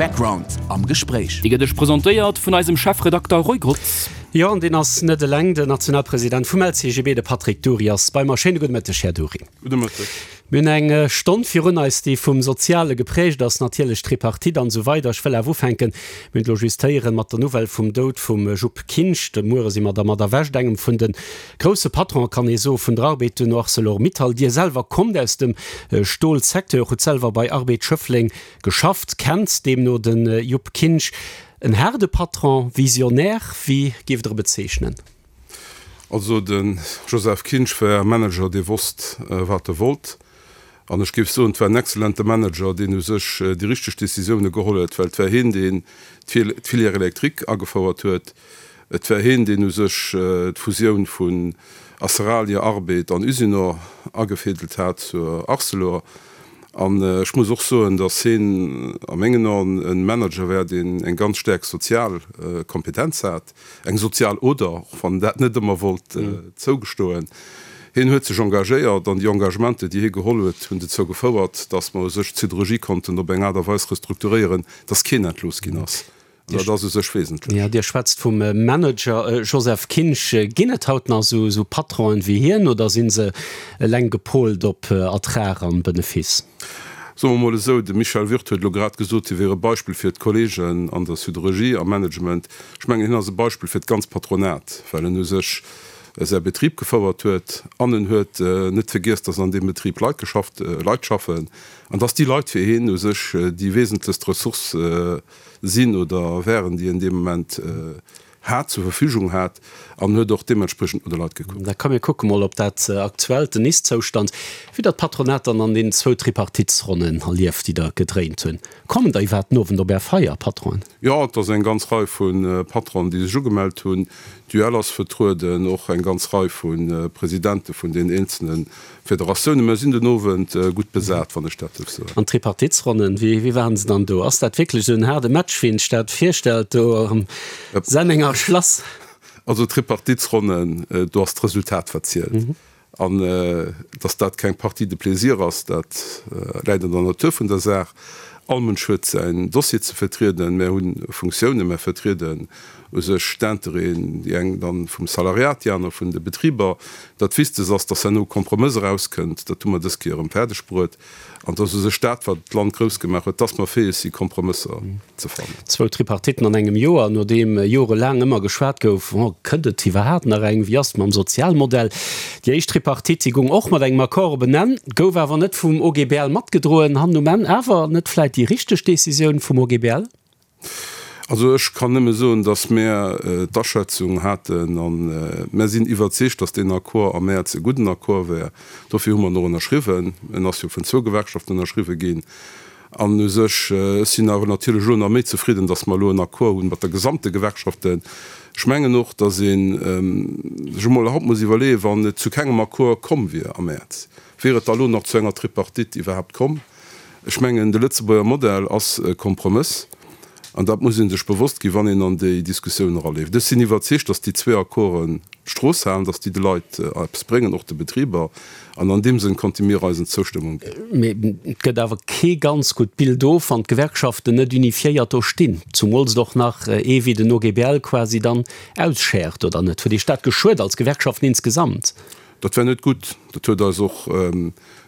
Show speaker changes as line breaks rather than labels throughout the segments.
Background am Gespréich.
Déi gëtt iech presentéiert vun eisem Chefredakter Roy Grotz.
Jo, an deen ass net eleng, den Nationalpresident vum LCGB, de Patrick Dury ass bei mer. Schéine gudde Mëtteg, Här Dury.
Gudde Mëtteg.
Mir hunn eng Stonn virun eis, déi vum Soziale geprägt ass, natierlech d'Tripartite an esou weider. Ech wëll awer ufänken, mir hunn et elo just héieren, mat der Nouvelle vum Doud vum Jupp Kinsch. De Muere si mer dermat erwächt, engem vun de grousse Patronen, kann ee soen, vun der Arbed, duerno Arcelor-Mittal. Dir selwer kommt aus dem Stolsecteur, hutt selwer bei Arbed Schëffleng geschafft, kennt deemno de Jupp Kinsch. En haarde Patron, Visionär, wéi géift Der e bezeechnen?
Also de Joseph Kinsch war e Manager, dee wosst, wat e wollt. An ech géif soen, et war en exzellente Manager, deen u sech déi richteg Décisioune geholl huet, well et war hien, deen d'Filière électrique agefouert huet. Et war hien, deen u sech d'Fusioun vun Aceralia, Arbed an Usinor agefädelt hat zur Arcelor. An ech muss och soen, datt hien a mengen Aen e Manager war, deen eng ganz staark sozial Kompetenz hat. Eng sozial Oder, och wann en dat net ëmmer wollt zougestoen. Hien huet sech engagéiert an déi Engagementer, déi hie geholl huet, hunn dozou gefouert, datt mer u sech d'Siderurgie konnten op eng Aart a Weis restrukturéieren, datt keen entlooss ginn ass. An dat ass u sech wesentlech.
Jo, Dir schwätzt vum Manager Joseph Kinsch. Ginn et haut nach esou Patronen wéi hien oder si se eleng gepolt op Ertrag an Benefiss?
Soe mer emol esou, de Michel Würth huet elo grad gesot, hie wier e Beispill fir d'Kollegen an der Siderurgie, am Management. Ech mengen, hien ass e Beispill fir d'ganz Patronat, well en u sech säi Betrib gefouert huet an en huet net vergiess, dass an deem Betrib Leit geschafft, Leit schaffen an dass déi Leit fir hien u sech déi wesentlechst Ressource sinn oder wären, déi en dee Moment hat, zur Verfügung hat an huet och deementspriechend no de Leit gekuckt.
Da komm mir kucke mol op dat aktuellt, den Ist-Zoustand, wéi der d'Patronat dann an deenen zwou Tripartitsronnen erlieft, déi der gedréint hunn. Kommen der iwwerhaapt den Owend op Är Feier, Patronen?
Jo, et ass eng ganz Rei vu Patronen, déi sech ugemellt hunn. D'UEL ass vertrueden, och eng ganz Rei vu Presidente vun den eenzelne Federatiounen. Mer sinn den Owend gutt besat, wann ech dat duerf soen.
An d'Tripartitsronnen, wéi wéi waren se dann do? Ass dat wierklech esou en haarde Match, wéi een sech dat virstellt do am Sennenger Schlass?
Also d'Tripartitsronnen, do ass d'Resultat wat zielt. An datt dat keng Partie de plaisir ass, dat läit an der Natur vun der Saach. All Mënsch huet säin Dossier ze vertrieden. Mär hu Funktiounen, mär vertrieden u sech d'Intérêten, déi eng dann vum Salariat, déi aner vun de Betriber. Dat Wichtegst ass, dass herno e Kompromëss erauskënnt. Dat hu mer dës Kéier erëm fäerdeg bruet. An dass u sech dat, wat d'Land grouss gemaach huet, dass mer fäeg si Kompromësser ze fannen.
Zwou Tripartitten an engem Joer, nodeem jorelaang ëmmer geschwat gouf, oh, kënnt et iwwerhaapt nach eng, wéi ass et mam Sozialmodell? Déi éischt Tripartite, déi goung och mat engem Accord op en Enn, gouf awer net vum OGBL matgedroen. Hannen um Enn awer net vläit déi richteg Decisioun vum OGBL?
Also ech kann nëmme soen, datt mär d'Aschätzung haten a mär sinn iwwerzeegt, datt deen Accord am Mäerz e gudden Accord wär. Dofir hu mer en och ënnerschriwwen. En ass jo vun zwou Gewerkschaften ënnerschriwwe ginn. An u sech, ech sinn awer natierlech elo nach méi zefridden, datt mer elo en Accord hunn mat der gesamte Gewerkschaften. Ech mengen och, datt ee sech emol haut muss iwwerleeën, wann et zu kengem Accord komm wier am Mäerz, wier et da elo nach zu enger Tripartite iwwerhaapt komm? Ech mengen, de Lëtzebuerger Modell ass e Kompromëss, an dat muss ee sech bewosst ginn, wann een an déi Diskussioun eraleeft. Ech sinn iwwerzeegt, datt déi zwee Accorden d'Strooss halen, datt déi de Leit eppes bréngen, och de Betriber, an an deem Sënn konnte mir eisen Zoustëmmung ginn.
Mee et gëtt awer kee ganz gutt Bild of, wann d'Gewerkschaften net unifiéiert do stinn, zumools et och nach ee wéi den OGBL quasi dann ausschäert, oder net? Huet Iech dat geschuet als Gewerkschaften insgesamt?
Dat war net gutt. Dat huet eis och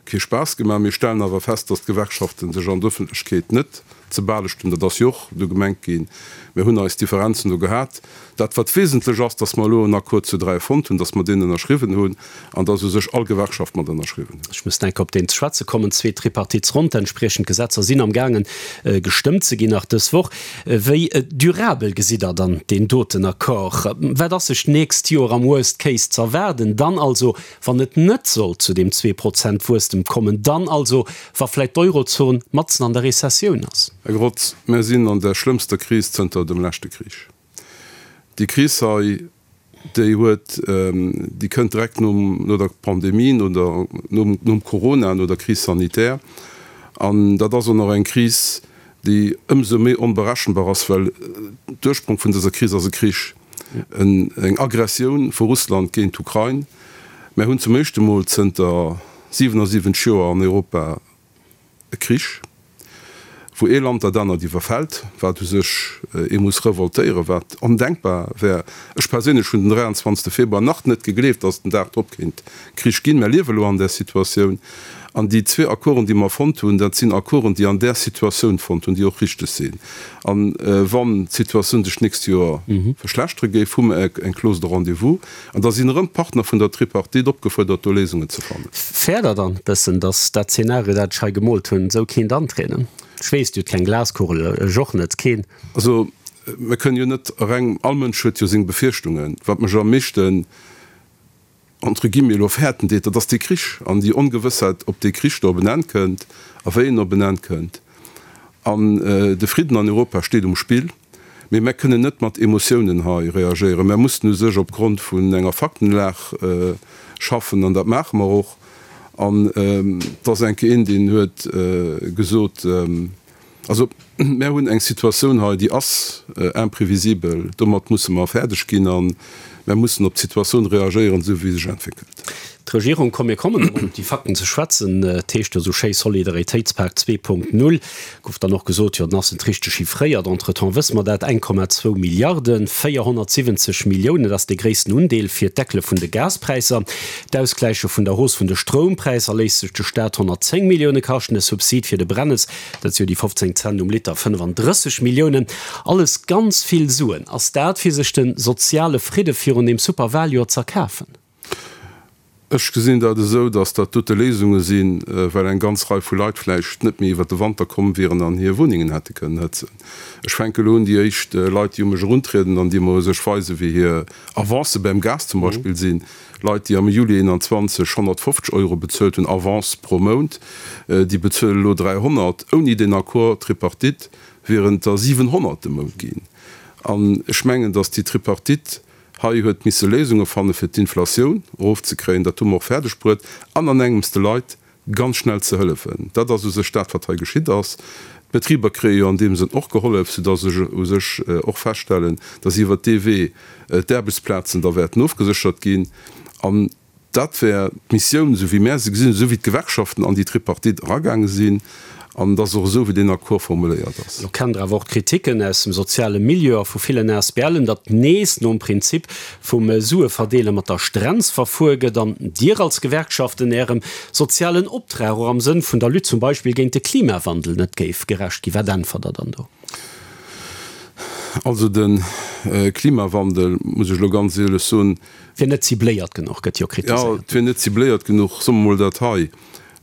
kee Spaass gemaach. Mir stellen awer fest, datt d'Gewerkschafte sech an der Ëffentlechkeet net ze balecht hunn. Dat ass jo och do gemengt ginn. Mir hunn eis Differenzen do gehat. Dat, wat wesentlech ass, datt mer elo en Accord zu 3 fonnt hunn, datt mer deen ënnerschriwwen hunn an datt u sech all Gewerkschaft mat ënnerschriwwen huet.
Ech muss enk op deen ze schwätze kommen. Zweet Tripartitsronn, d'entspriechend Gesetzer sinn am gaangen gestëmmt ze ginn nach dës Woch. Wéi durabel gesitt Der dann deen doten Accord? Wat ass sech d'nächst Joer am Worst Case z'erwaarden? Dann also, wann et net sollt zu deem Zweeprozent-Wuesstem kommen, dann also, wa vläit d'Eurozon matzen an der Rezessioun ass?
Här Grotz, mär sinn an der schlëmmster Kris zënter dem leschte Krich. Déi Kris hei, déi huet, déi kënnt direkt nom, no der Pandemie, no der, nom, nom Corona, no der Crise sanitaire. An dat ass och nach eng Kris, déi ëmsou méi onberechenbar ass, well d'Ursprong vun dëser Kris ass e Krich, en, eng Aggressioun vu Russland géint d'Ukrain. Mär hunn zum éischte Mol zënter 77 Joer an Europa e Krich. Wou ee Land dat anert iwwerfält, wat u sech ee muss revoltéieren, wat ondenkbar wär. Ech perséinlech hunn den 23. Februar nach net gegleeft, datt den Dag drop kéint Krich ginn. Mer liewe elo an där Situatioun. An déi zwee Accorden, déi mer fonnt hunn, dat sinn Accorden, déi an där Situatioun fonnt hunn, déi och richteg sinn. A wann d'Situatioun sech d'nächst Joer verschlechtere géif, hu mer eng Clause de rendez-vous. An da sinn erëm d'Partner vun der Tripartite opgefuerdert, do Léisungen ze fannen.
Fäert Der dann e bëssen, datt dat Zeenario, dat ech hei gemoolt hunn, esou kéint antrieden? Ech weess, Dir hutt keng Glaskugel, ech och net, keen.
Also, mir kënnen jo net reng, all Mënsch huet jo seng Befierchtungen. Wat mech am meeschten, entre guillemets, elo fäerten deet, dat ass dee Krich an déi Ongewëssheit, ob dee Krich do op en Enn kënnt a wéi en op en Enn kënnt. An de Fridden an Europa steet um Spill. Mee mär kënnen net mat Emotiounen hei reagéieren. Mär mussen u sech opgrond vun enger Faktenlag schaffen an dat maache mer och. An et ass eng Kéier een, deen huet gesot, also mär hunn eng Situatioun hei, déi ass imprévisibel, domat musse mer fäerdeg ginn a mär mussen op d'Situatioun reagéieren, esou wéi se sech entwéckelt.
D'Regierung, komm mir kommen erëm op déi Fakten ze schwätzen, et heescht jo esou schéi Solidaritéitspak 2.0, gouf dann och gesot, jo dann ass net richteg chiffréiert, entretemps wësse mer dat, 1,2 Milliarden, 470 Milliounen, dat ass dee gréissten Undeel fir d'Deckele vun de Gaspräisser. D'Ausgläiche vun der Hausse vun de Stroumpräisser léisst sech de Staat 110 Millioune kaschten, de Subsid fir de Brennes, dat si jo déi 15 Cent um Liter, 35 Milliounen. Alles ganz vill Suen. Ass dat fir sech de soziale Fridde virun deem Superwaljoer z'erkafen?
Ech gesinn dat esou, datt dat dote Léisunge sinn, well eng ganz Rei vu Leit vläicht net méi iwwert de Wanter komm wieren an hir Wunnengen hätte kënnen hëtzen. Ech fänke elo un, déi éischt Leit, déi u mech eruntrieden an déi mer u sech weisen, wéi hir Avancë beim Gas zum Beispill sinn, Leit, déi am Juli 21 150 Euro bezuelt hunn Avance pro Mount, déi bezuelen elo 300. Ouni deen Accord tripartite wieren et der 700 de Mount ginn. An ech mengen, datt déi Tripartite Hei huet misse Léisunge fanne fir d'Inflatioun erofzekréien, dat hu mer och fäerdeg bruet, an an engems de Leit ganz schnell ze hëllefen. Dat ass u sech dat, wat hei geschitt ass. D'Betriber kréie jo an deem Sënn och gehollef, soudass ech u sech och feststellen, dass iwwert dee Wee d'Aarbechtsplazen da wäerten ofgeséchert ginn. An Dat wär d'Missioun, esou wéi mär se gesinn, esou wéi d'Gewerkschaften an déi Tripartite eragaange sinn, an et ass och esou, wéi deen Accord formuléiert ass.
Lo kennt Der awer och d'Kritiken aus dem soziale Milieu a vu villen ASBLen, datt nees nom Prinzip vum Sueverdeele mat der Strenz verfuer gëtt an Dir als Gewerkschaften Ärem sozialen Optrag och am Sënn vun der Lutte zum Beispill géint de Klimawandel net géif gerecht ginn. Wat äntwert Der dann do?
Also de Klimawandel, muss ech elo ganz éierlech soen,
Wier net cibléiert genuch, gëtt jo kritiséiert.
Jo, et wier net cibléiert genuch. Soe mer mol dat hei,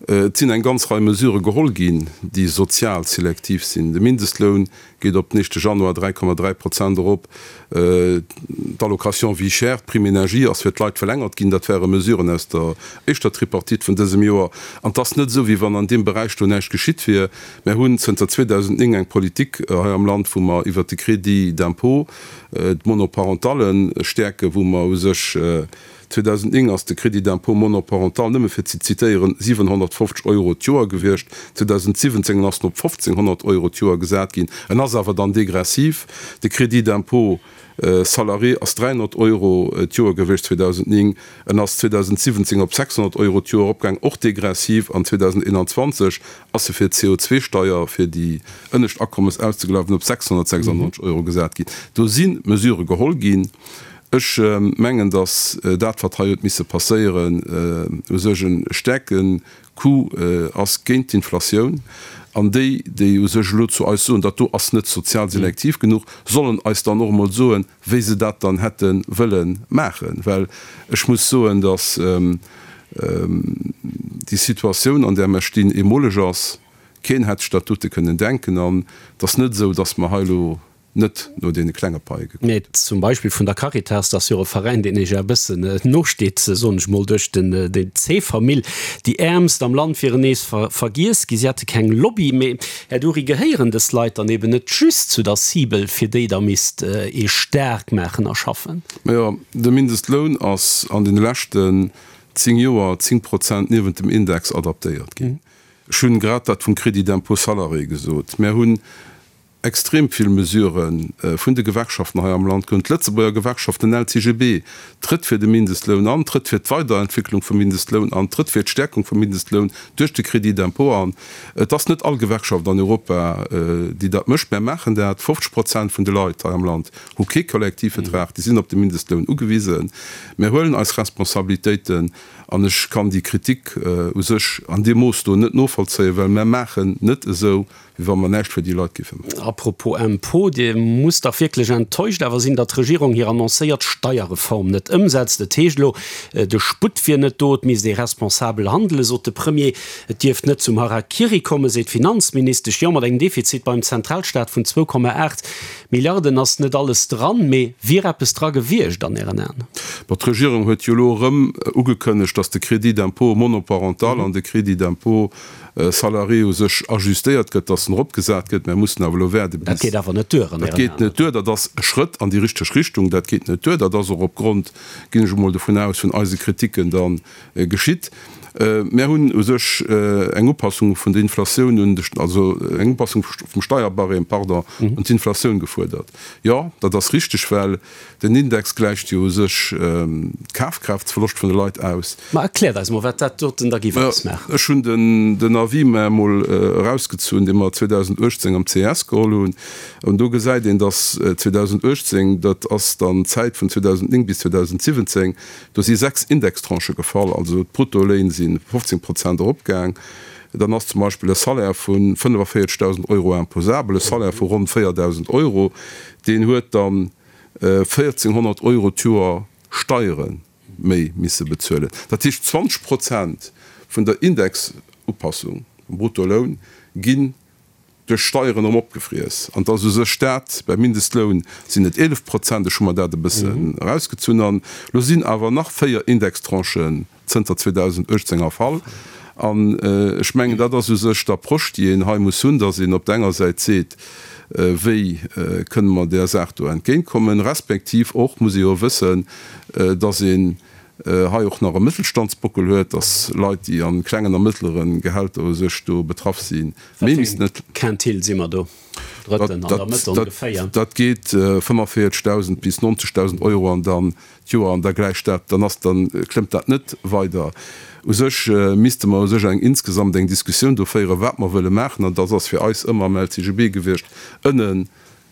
Et sinn eng ganz Rei Mesurë geholl ginn, déi sozial selektiv sinn. De Mindestloun geet op den éischte Januar 3,3 Prozent erop, d'Allocation vie chère, d'Prime énergie ass fir d'Leit verlängert ginn. Dat ware Mesuren aus der éischter Tripartite vun dësem Joer. An et ass net esou, wéi wann an deem Beräich do näischt geschitt wier. Mär hunn zënter 2009 eng Politik hei am Land, wou mer iwwert de Crédit d'impôt d'Monoparentale stäerken, wou mer u sech, 2009 ass de Crédit d'impôt monoparental, nëmme fir ze zitéieren, 750 Euro d'Joer gewiescht, 2017 ass en op 1.500 Euro d'Joer gesat ginn, en ass awer dann degressiv. De Crédit d'impôt salarié ass 300 Euro d'Joer gewiescht 2009, en ass 2017 op 600 Euro d'Joer eropgaang, och degressiv, an 2021 ass se fir d'CO2-Steier fir déi ënnescht Akommes auszegleichen op 696 Euro gesat ginn. Do si Mesurë geholl ginn. Ech mengen, datt dat, wat hei huet misse passéieren, u sech e staarke Coup ass géint d'Inflatioun. An déi, déi u sech elo zu eis soen, dat do ass net sozial selektiv genuch, sollen eis dann och emol soen, wéi se dat dann hätte wëlle maachen. Well ech muss soen, datt déi Situatioun, an där mer stinn, eemoleg ass. Keen hätt sech dat dote kënnen denken. An et ass net esou, datt mer hei elo net no deene klenge Paie gekuckt
hunn. Zum Beispill vun der Caritas, dat ass jo och e Veräin, deen Iech e bëssen nosteet, soen ech mol, duerch den C-Famill. Déi Äermst am Land wieren nees vergiess gi, si hätte keng Lobby. Mee, Här Dury, gehéieren dës Leit dann eben net just zu der Cible, fir déi Der misst ee staark maachen a schaffen?
Majo, de Mindestloun ass an deene leschten 10 Joer 10 Prozent niewent dem Index adaptéiert ginn. Ech hunn grad dat vum Crédit d'impôt salarié gesot. Mär hunn. extrem vill Mesurë vun de Gewerkschaften hei am Land ginn. D'Lëtzebuerger Gewerkschaft, den LCGB, trëtt fir de Mindestloun an, trëtt fir d'Weiderentwicklung vum Mindestloun an, trëtt fir d'Stäerkung vum Mindestloun duerch de Crédit d'impôt an. Et ass net all Gewerkschaft an Europa, déi dat mécht. Mär maachen dat. 50 Prozent vun de Leit hei am Land hu kee Kollektivvertrag, déi sinn op de Mindestloun ugewisen. Mär huelen eis Responsabilitéiten an ech kann déi Kritik u sech an deem Mooss do net novollzéien, well mär maachen net esou, wéi wa mer näischt fir déi Leit géife maachen.
A propos Impôt, Dir musst dach wierklech enttäuscht awer sinn, datt d'Regierung hir annoncéiert Steierreform net ëmsetzt. Et heescht elo, de Sputt wier net do, et misst ee responsabel handelen, sot de Premier. Et dierft net zum Harakiri kommen, seet d'Finanzministesch. Jo, mat engem Defizit beim Zentralstaat vun 2,8 Milliarden ass net alles dran, mee wier eppes dra gewiescht an Ären Aen?
Bon, d'Regierung huet jo elo erëm ugekënnegt, datt de Crédit d'impôt monoparental an de Crédit d'impôt salarié u sech ajustéiert gëtt, dass en eropgesat gëtt. Mär mussen awer elo waarde bis.
Dat geet awer net duer an
Ären Aen? Dat geet net duer. Dat ass e Schrëtt an déi richteg Richtung. Dat geet net duer. Dat ass och opgrond, ginn ech emol dovun aus, vun eise Kritiken da geschitt. Mär hunn u sech eng Upassung vun der Inflatioun un de, also eng Upassung vum Steierbarème, pardon, un d'Inflatioun gefuerdert. Jo, dat ass richteg, well Den Index gläicht jo u sech d'Kafkraaftverloscht vun de Leit aus.
Ma erkläert eis mol, wat dat doten da giff ausmaachen.
Ech hunn den Avis mer emol erausgezunn, dee mer 2018 am ces geholl hunn. An do gesäit een, datt 2018, dat ass dann d'Zäit vun 2009 bis 2017, do si 6 Indextranchë gefall, also d'Bruttoléin si 15 Prozent eropgaang. Dann ass zum Beispill e Salaire vu 45.000 Euro imposabel, e Salaire vu ronn 4.000 Euro, deen huet dann 1.400 Euro d'Joer Steiere méi misse bezuelen. Dat heescht, 20 Prozent vun der Indexupassung vum Bruttoloun ginn duerch Steieren erëm opgefriess. An et ass u sech dat, beim Mindestloun sinn et 11 Prozent, ech hu mer dat e bëssen erausgezunn, an elo sinn awer nach véier Indextranchen zënter 2018 erfall. An ech mengen, dat ass u sech d'Approche, déi een hei muss hunn, dass een op der enger Säit seet, Wéi kënne mer där Saach do entgéintkommen? Respektiv och muss ee jo wëssen, dass een hei och nach e Mëttelstandsbockel huet, dass Leit, déi a klengen a mëttlere Gehälter u sech do betraff sinn,
méi missten et. Quintile si mer do? Drëtten an der Mëtt ongeféier.
Dat geet 45.000 bis 90.000 Euro an dann d'Joer an da gläicht dat, dann ass, dann klëmmt dat net weider. U sech misste mer u sech eng insgesamt eng Diskussioun do féieren, wat mer wëlle maachen, an dat ass fir eis ëmmer am LCGB gewiescht, ënne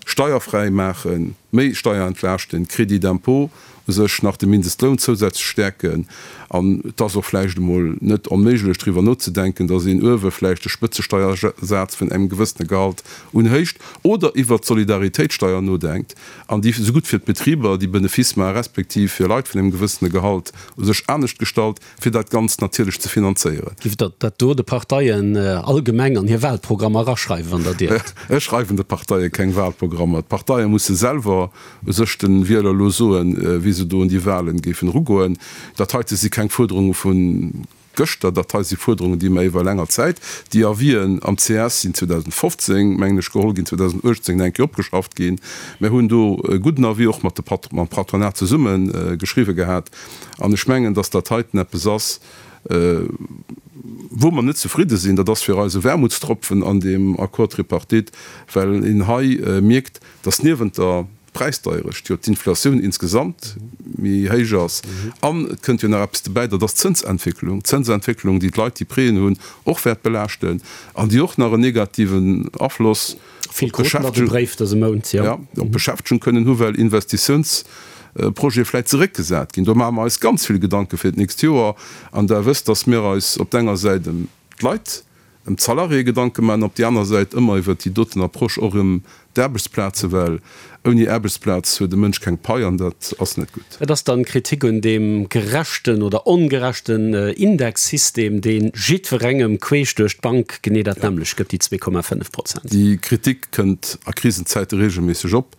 steierfräi maachen, méi Steier entlaaschten, Crédit d'impôt u sech nach de Mindestloun zousätzlech stäerken. An et ass och vläicht emol net onméiglech driwwer nozedenken, datt een uewe vläicht de Spëtzesteiersaz vun engem gewëssene Gehalt unhéicht oder iwwert d'Solidaritéitssteier nodenkt. an déi esou gutt fir d'Betriber, déi Benefice maachen, respektiv fir Leit vun engem gewëssene Gehalt u sech anescht gestalt, fir dat Ganzt natierlech ze finanzéieren.
Giff Der dat do de Parteien allgemeng an hir Wahlprogrammer eraschreiwen, wann Der dierft?
Ech schreiwen de Parteie keng Wahlprogrammer. D'Parteie musse selwer u sech de Wieler elo soen, wéi se do un déi Wahlen géifen erugoen. Dat heite si keng Fuerderunge vu Gëschter, dat hei si Fuerderungen, déi mer iwwer länger Zäit, déi Avisen am ces sinn 2015, mengen ech, geholl ginn, 2018 eng Kéier opgeschafft ginn. Mir hunn do e gudden Avis och mat de Pat, mam Patronat zesumme geschriwwe gehat. An ech mengen, dass dat heiten eppes ass, wou mer net zefridde sinn. Dat ass fir eis e Wermutstropfen an deem Accord tripartite, well een hei mierkt, dass niewent der D'Präisdeierecht, jo d'Inflatioun insgesamt méi héich ass. An et kënnt jo nach eppes dobäi, dat ass d'Zënsentwécklung. D'Zënsentwécklung, déi d'Leit, déi Prêten hunn, och wäert belaaschten an déi och nach en negativen Afloss op d'Beschäftegung kënnen hu well Investitiounsprojete vläicht zeréckgesat ginn. Do maache mer eis ganz vill Gedanke fir d'nächst Joer. An Der wësst, dass mir eis op der enger Säit ëm d'Leit, ëm d'Salariéë Gedanke maachen, op déi aner Säit ëmmer iwwert déi doten Approche och ëm d'Aarbechtsplaze, well ouni Aarbechtsplaz huet e Mënsch keng Pai an dat ass net gutt.
Et ass dann Kritik un deem gerechten oder ongerechten Indexsystem, dee jiddwerengem queesch duerch d'Bank genee dat nämmlecht gëtt, déi 2,5 Prozent.
Déi Kritik kënnt a Krisenzäite regelméisseg op.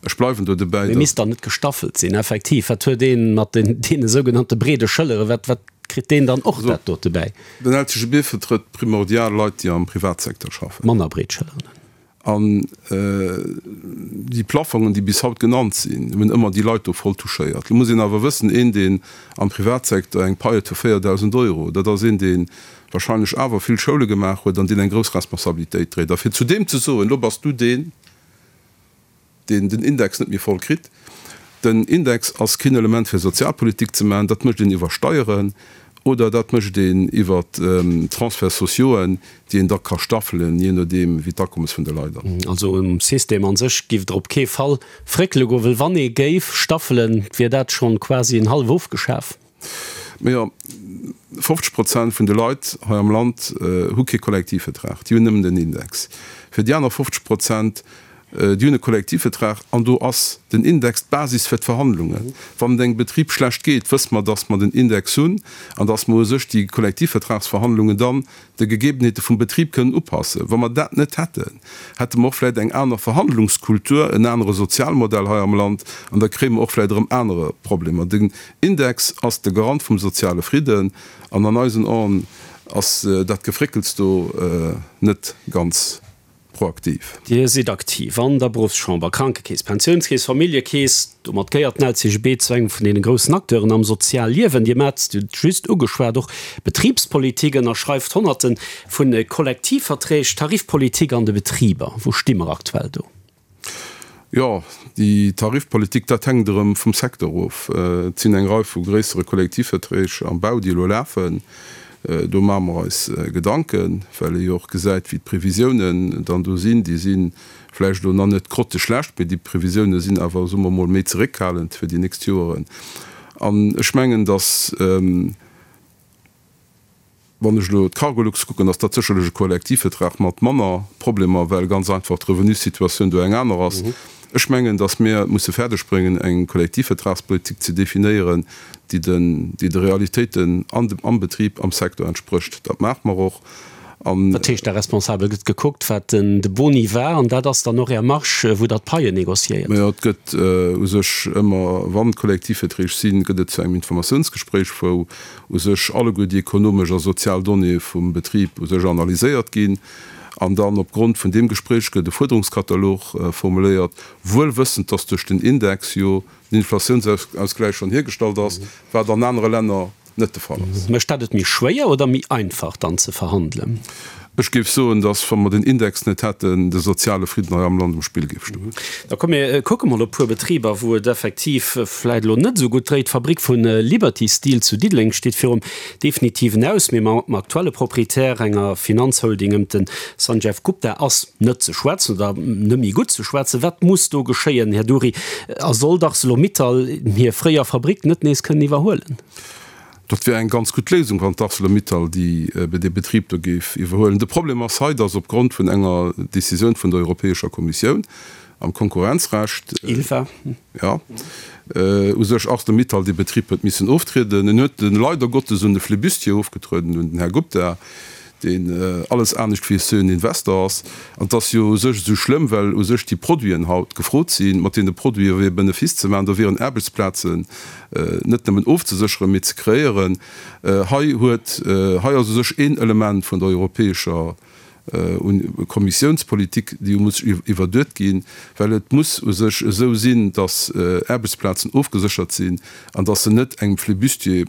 Ech bleiwen do dobäi,
Mee
datt.
misst dann net gestaffelt sinn? Effektiv, wat huet ee mat deene sougenannte breede Schëllere, wat, wat kritt deen dann och dat dote bäi?
Den LCGB vertrëtt primordial Leit, déi am Privatsecteur schaffen.
Manner breet Schëlleren hunn.
An déi Plaffongen, déi bis haut genannt sinn, hunn ëmmer déi Leit do voll touchéiert. Lo muss een awer wëssen, een, deen am Privatsecteur eng Pai huet vu 4.000 Euro, dat ass een, dee wahrscheinlech awer vill Schoule gemaach huet an deen eng grouss Responsabilitéit dréit. A fir zu deem ze soen, lo bass du deen. Deen den Index net méi voll kritt. Den Index ass keen Element fir Sozialpolitik ze maachen, dat mécht een iwwer Steieren oder dat mécht een iwwer Transferts sociauxen, déi een da ka staffelen, jee nodeem wéi d'Akommes vun de Leit ass.
Also um System a sech giff Der op kee Fall fréckele goen, well wann ee géif staffelen, wier dat schonn quasi en hallef ofgeschaf.
Majo, 50 Prozent vun de Leit hei am Land hu kee Kollektivvertrag, déi hunn nëmmen den Index. Fir déi aner 50 Prozent, déi hunn e Kollektivvertrag an do ass den Index d'Basis fir d'Verhandlungen. Wann et engem Betrib schlecht geet, wësse mer, datt mer den Index hunn an datt mer u sech déi Kollektivvertragsverhandlungen dann de Gegebenheete vum Betrib kënnen upassen. Wa mer dat net hätten, hätte mer och vläicht eng aner Verhandlungskultur, en anere Sozialmodell hei am Land an da kréie mer och vläicht erëm anere Problemer. Den Index ass de Garant vum soziale Fridden an an eisen Aen ass dat Gefréckels do net ganz proaktiv.
Dir sidd aktiv an der Beruffschamber, Krankekeess, Pensiounskeess, Familljekeess. Domat gehéiert den LCGB zu engem vun deene groussen Acteuren am Sozialliewen. Dir maacht, Dir hutt et just ugeschwat, och Betribspolitik, ënnerschreift Honnerte vu Kollektivverträg, Tarifpolitik an de Betriber. Wou sti mer aktuell do?
Jo, déi Tarifpolitik, dat hänkt erëm vum Secteur of. Et sinn eng Rei vu gréissere Kollektivverträg am Bau, déi elo lafen. Do maache mer eis Gedanken, well ee jo och gesäit, wéi d'Previsiounen dann do sinn. Déi si vläicht elo nach net grotteschlecht, mee déi Previsioune sinn awer, soe mer emol, méi zeréckhalend fir déi nächst Joeren. An ech mengen, datt, Wann ech elo d'Cargolux kucken, ass dat sécherlech e Kollektivvertrag mat manner Problemer, well ganz einfach d'Revenussituatioun do eng aner ass. Ech mengen, datt mir et musse fäerdegbréngen, eng Kollektivvertragspolitik ze definéieren, déi den, déi de Realitéiten an dem, am Betrib, am Secteur entsprécht. Dat maache mer och.
An. Dat heescht, da responsabel gëtt gekuckt, wat den de Boni war, an dat ass dann och Är Marge, wou Der d'Paien négociéiert?
Majo, et gëtt u sech ëmmer, wann Kollektivverträg sinn, gëtt et zu engem Informatiounsgespréich, wou u sech alleguer déi ekonomesch a sozial Donnéeë vum Betrib u sech analyséiert ginn an dann op Grond vun deem Gespréich gëtt e Fuerderungskatalog formuléiert, wuel wëssend, dass duerch den Index jo den Inflatiounsausgläich schonn hiergestallt ass, wat an anere Länner net de Fall ass.
Mécht dat et méi schwéier oder méi einfach dann ze verhandelen?
Ech géif soen, dass, wa mer den Index net hätten, de soziale Fridden hei am Land um Spill géif stoen.
Da komm mir kucke mol op e puer Betriber, wou et effektiv vläit elo net esou gutt dréit. D'Fabrik vu Liberty Steel zu Diddeleng steet virum definitiven Aus, mee mam aktuelle Proprietär, enger Finanzholding ëm de Sanjeev Gupta, ass net ze schwätzen oder net méi gutt ze schwätzen. Wat muss do geschéien, Här Dury? A soll d'Arcelor-Mittal hir fréier Fabrik net nees kënnen iwwerhuelen?
Dat wär eng ganz gutt Léisung, wann d'Arcelor-Mittal déi, dee Betrib do géif iwwerhuelen. De Problem ass hei, dass opgrond vun enger Décisioun vun der Europäescher Kommissioun am Konkurrenzrecht,
ILFA,
jo, u sech Arcelor-Mittal dee Betrib huet missen oftrieden. En huet en leider Gottes un de Flibustier ofgetrueden, un den Här Gupta, deen alles anescht wéi e seriöen Investor ass. An et ass jo u sech esou schlëmm, well u sech déi Produiten haut gefrot sinn. Mat deene Produite wier Benefice ze maachen, do wieren Aarbechtsplazen net nëmmen ofzesécheren, mee ze kreéieren. Hei huet, hei ass u sech een Element vun der europäescher Kommissiounspolitik, déi muss iwwerduet ginn, well et muss u sech esou sinn, datt Aarbechtsplazen ofgeséchert sinn an datt se net engem Flibustier,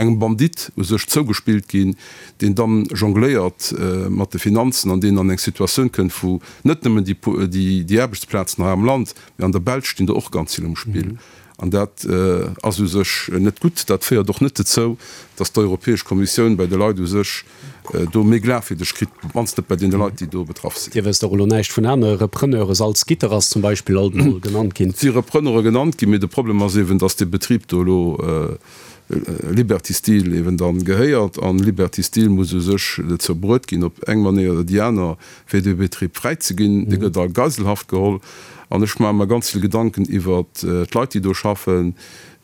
engem Bandit u sech zougespillt ginn, deen dann jongléiert mat de Finanzen an deen an eng Situatioun kënnt, wou net nëmmen déi Aarbechtsplazen hei am Land, mee an der Belsch stinn der och ganz vill um Spill. An dat ass u sech net gutt. Dat féiert och net dozou, datt d'Europäesch Kommissioun bei de Leit u sech do méi Glafwierdeg kritt, op d'mannst net bei deene Leit, déi do betraff sinn.
Dir wësst och elo näischt vun anere Repreneure, Salzgitter ass zum Beispill alt emol genannt ginn.
Et si Repreneure genannt ginn, mee de Problem ass eeben, datt dee Betrib do elo Liberty Steel eben dann gehéiert an Liberty Steel muss u sech dozou bruet ginn, op eng Manéier oder déi aner, fir dee Betrib fräi ze ginn. Dee gëtt a Geiselhaft geholl an ech maache mer ganz vill Gedanken iwwert d'Leit, déi do schaffen,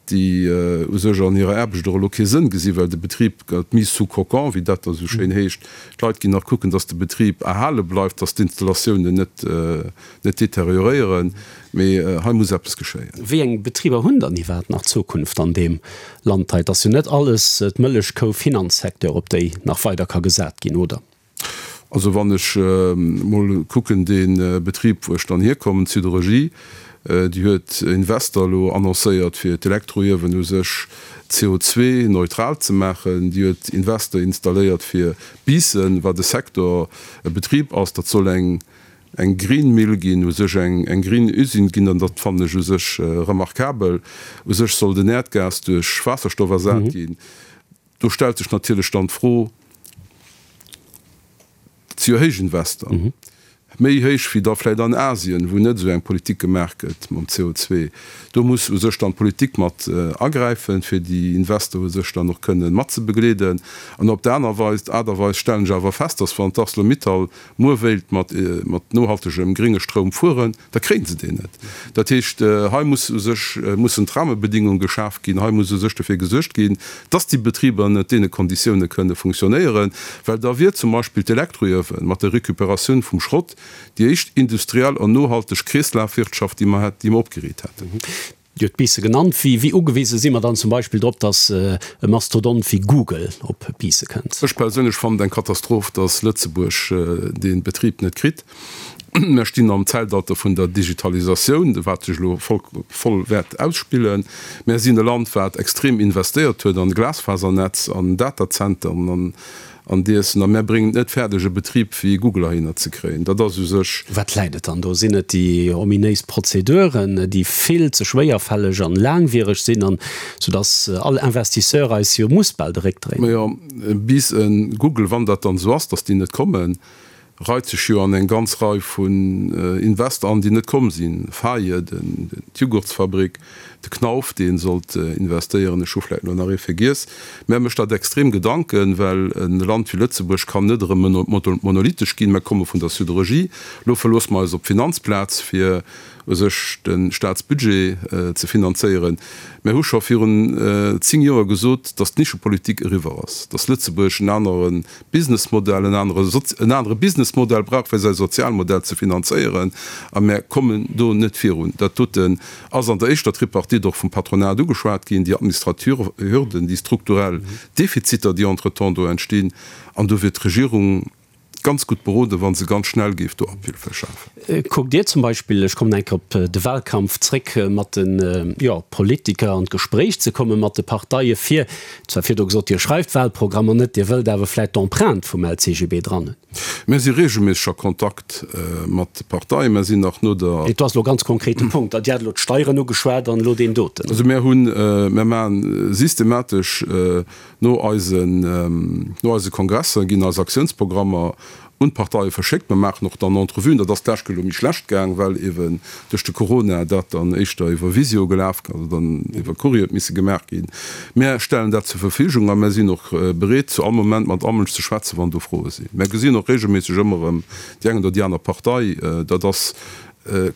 déi u sech an hirer Aarbecht och elo kee Sënn gesinn, well de Betrib gëtt mis sous cocon, wéi dat da sou schéin heescht. D'Leit ginn nach kucken, dass de Betrib erhale bleift, dass d'Installatiounen net net deterioréieren, mee hei muss eppes geschéien.
Wéi eng Betriber hunn dann iwwerhaapt nach Zukunft an deem Land hei? Et ass jo net alles d'Mëllechkou Finanzsecteur, op déi nach weider ka gesat ginn, oder?
Also wann ech mol kucken, dee Betrib, wou ech dann hierkommen, d'Siderurgie, déi huet Invester elo annoncéiert, fir d'Elektroiewen u sech CO2-neutral ze maachen. Déi huet Invester installéiert fir Biissen, wat e Secteur, e Betrib ass, dat soll eng. Eng Green Mill ginn, u sech eng green Usine ginn, an dat fannen ech u sech remarkabel. U sech soll den Äerdgas duerch Waasserstoff ersat ginn. Do stellt sech natierlech dann d'Fro, dat si jo héich Invester, méi héich wéi da vläicht an Asien, wou net esou eng Politik gemaach gëtt mam CO2. Do muss u sech dann d'Politik mat agräifen, fir déi Investor u sech dann och kënnen matzebegleeden. An op der aner Weis, Aart a Weis stellen ech awer fest, dass wann d'Arcelor-Mittal muer wéilt mat nohaltegem grénge Stroum fueren, da kréien se deen net. Dat heescht, hei muss u sech, mussen d'Rahmebedingunge geschaf ginn, hei muss u sech dofir gesuergt ginn, dass déi Betriber ënnert deene Konditioune kënne funktionéieren, well da wier zum Beispill d'Elektroiewen mat der Récupératioun vum Schrott déi éischt industriell an nohalteg Kreeslafwirtschaft, déi mer déi mer opgeriit hätten.
Dir hutt Biissen genannt. Wéi ugewise si mer dann zum Beispill drop, datt e Mastodont wéi Google op Biisse kënnt?
Ech perséinlech fannen et eng Katastroph, datt Lëtzebuerg dee Betrib net kritt. Mer stinn am Zäitalter vun der Digitalisatioun, wat sech elo voll wäert ausspillen. Mer sinn e Land, wat extrem investéiert huet an Glasfasernetz, an Datazenteren, an An diessen, a mär bréngen et net fäerdeg e Betrib wéi Google heihinner ze kréien. Dat ass u sech.
Wat läit et dann do? Sinn et déi ominéis Prozeduren, déi vill ze schwéierfälleg an laangwiereg sinn, an soudass all Investisseur eis jo muss bal de Réck dréinen?
Majo, bis e Google, wann dat dann esou ass, dass déi net kommen, reit sech jo an eng ganz Rei vun Invester an, déi net komm sinn, Faye, d'Jugurtsfabrik, de Knauf, dee sollt investéieren, ech hu vläicht elo nach ee vergiess. Mä mécht dat extrem Gedanken, well e Land wéi Lëtzebuerg kann net erëm monolithisch ginn. Mer komme vun der Siderurgie, elo verloosse mer eis op d'Finanzplaz, fir u sech de Staatsbudget ze finanzéieren. Mer hu scho virun 10 Joer gesot, datt d'Nischepolitik eriwwer ass, datt Lëtzebuerg en anere Businessmodell, en anere, en anere Businessmodell brauch fir säi Sozialmodell ze finanzéieren, a mär kommen do net virun. Dat doten ass an der éischter Tripartite och vum Patronat ugeschwat ginn, déi administrativ Hürden, déi strukturell Defiziter, déi entretemps do entstinn, an do wier d'Regierung ganz gutt beroden, wa se ganz schnell géif do Abhilfe schafen.
Kuckt Dir zum Beispill, ech kommen eng Kéier op de Wahlkampf zréck, mat de, jo, Politiker an d'Gespréich ze komme mat de Parteie fir Zwar virdru gesot, Dir schreift Wahlprogrammer net, Dir wëllt awer vläit d'Empreinte vum LCGB dran hunn.
Mir si regelméisseg a Kontakt mat de Parteien. Mir sinn nach no der.
Et ass elo ganz konkret de Punkt. Dir hat elo d'Steieren ugeschwat an elo deen doten.
Also mir hunn, mir maache systematesch no eisen, no eise Kongresser ginn eis Aktiounsprogrammer un d'Parteie verschéckt. Mer maachen och dann Entrevuen. Dat ass d'lescht Kéier elo méi schlecht gaang, well eeben duerch de Corona dat dann éischter iwwer Visio gelaf, also dann iwwer Courrier huet misse gemaach ginn. Mär stellen dat zur Verfügung a mär sinn och bereet, zu all Moment mat all Mënsch ze schwätzen, wann do Froe sinn. Mär gesinn och regelméisseg ëmmer erëm déi eng oder déi aner Partei. Dat ass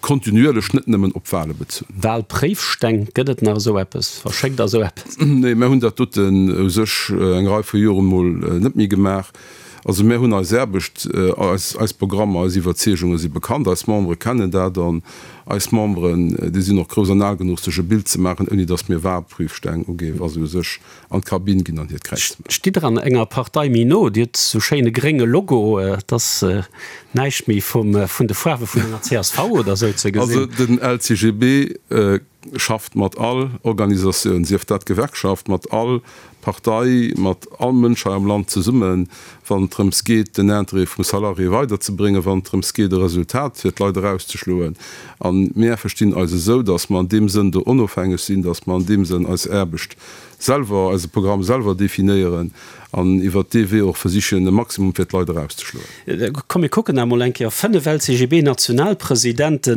kontinuierlech, net nëmmen op Wale bezunn.
Walpréifsteng, gëtt et nach esou eppes? Verschéckt Der esou eppes?
Nee, mär hunn dat doten u sech eng Rei vu Joren emol net méi gemaach. Also mär hunn eis Aarbecht, eis, eis Programmer, eis Iwwerzeegunge si bekannt, eis Membere kennen dat an eis Memberen, déi sinn och grouss an al genuch sech e Bild ze maachen, ouni datt mir Wahlprüfsteng uginn, wa se u sech an d'Kabinn ginn an hiert Kräiz maachen.
Stitt Der an enger Partei méi no? Dir hutt sou schéine grénge Logo, et ass näischt méi vum, vun de Faarwe vun enger csv oder sou ze gesinn.
Also den LCGB schafft mat all Organisatioun, sief dat Gewerkschaft, mat all Partei, mat all Mënsch hei am Land zesummen, wann et drëms geet, den Interêt vum Salarié weiderzebréngen, wann et drëms geet, e Resultat fir d'Leit erauszeschloen. A mir verstinn eis esou, datt mer an deem Sënn do onofhängeg sinn, datt mer an deem Sënn eis Aarbecht selwer, eise Programm selwer definéieren an iwwert dee Wee och versichen, e Maximum fir d'Leit erauszeschloen.
Komm mir kucken emol eng Kéier, 5 LCGB-Nationalpresidente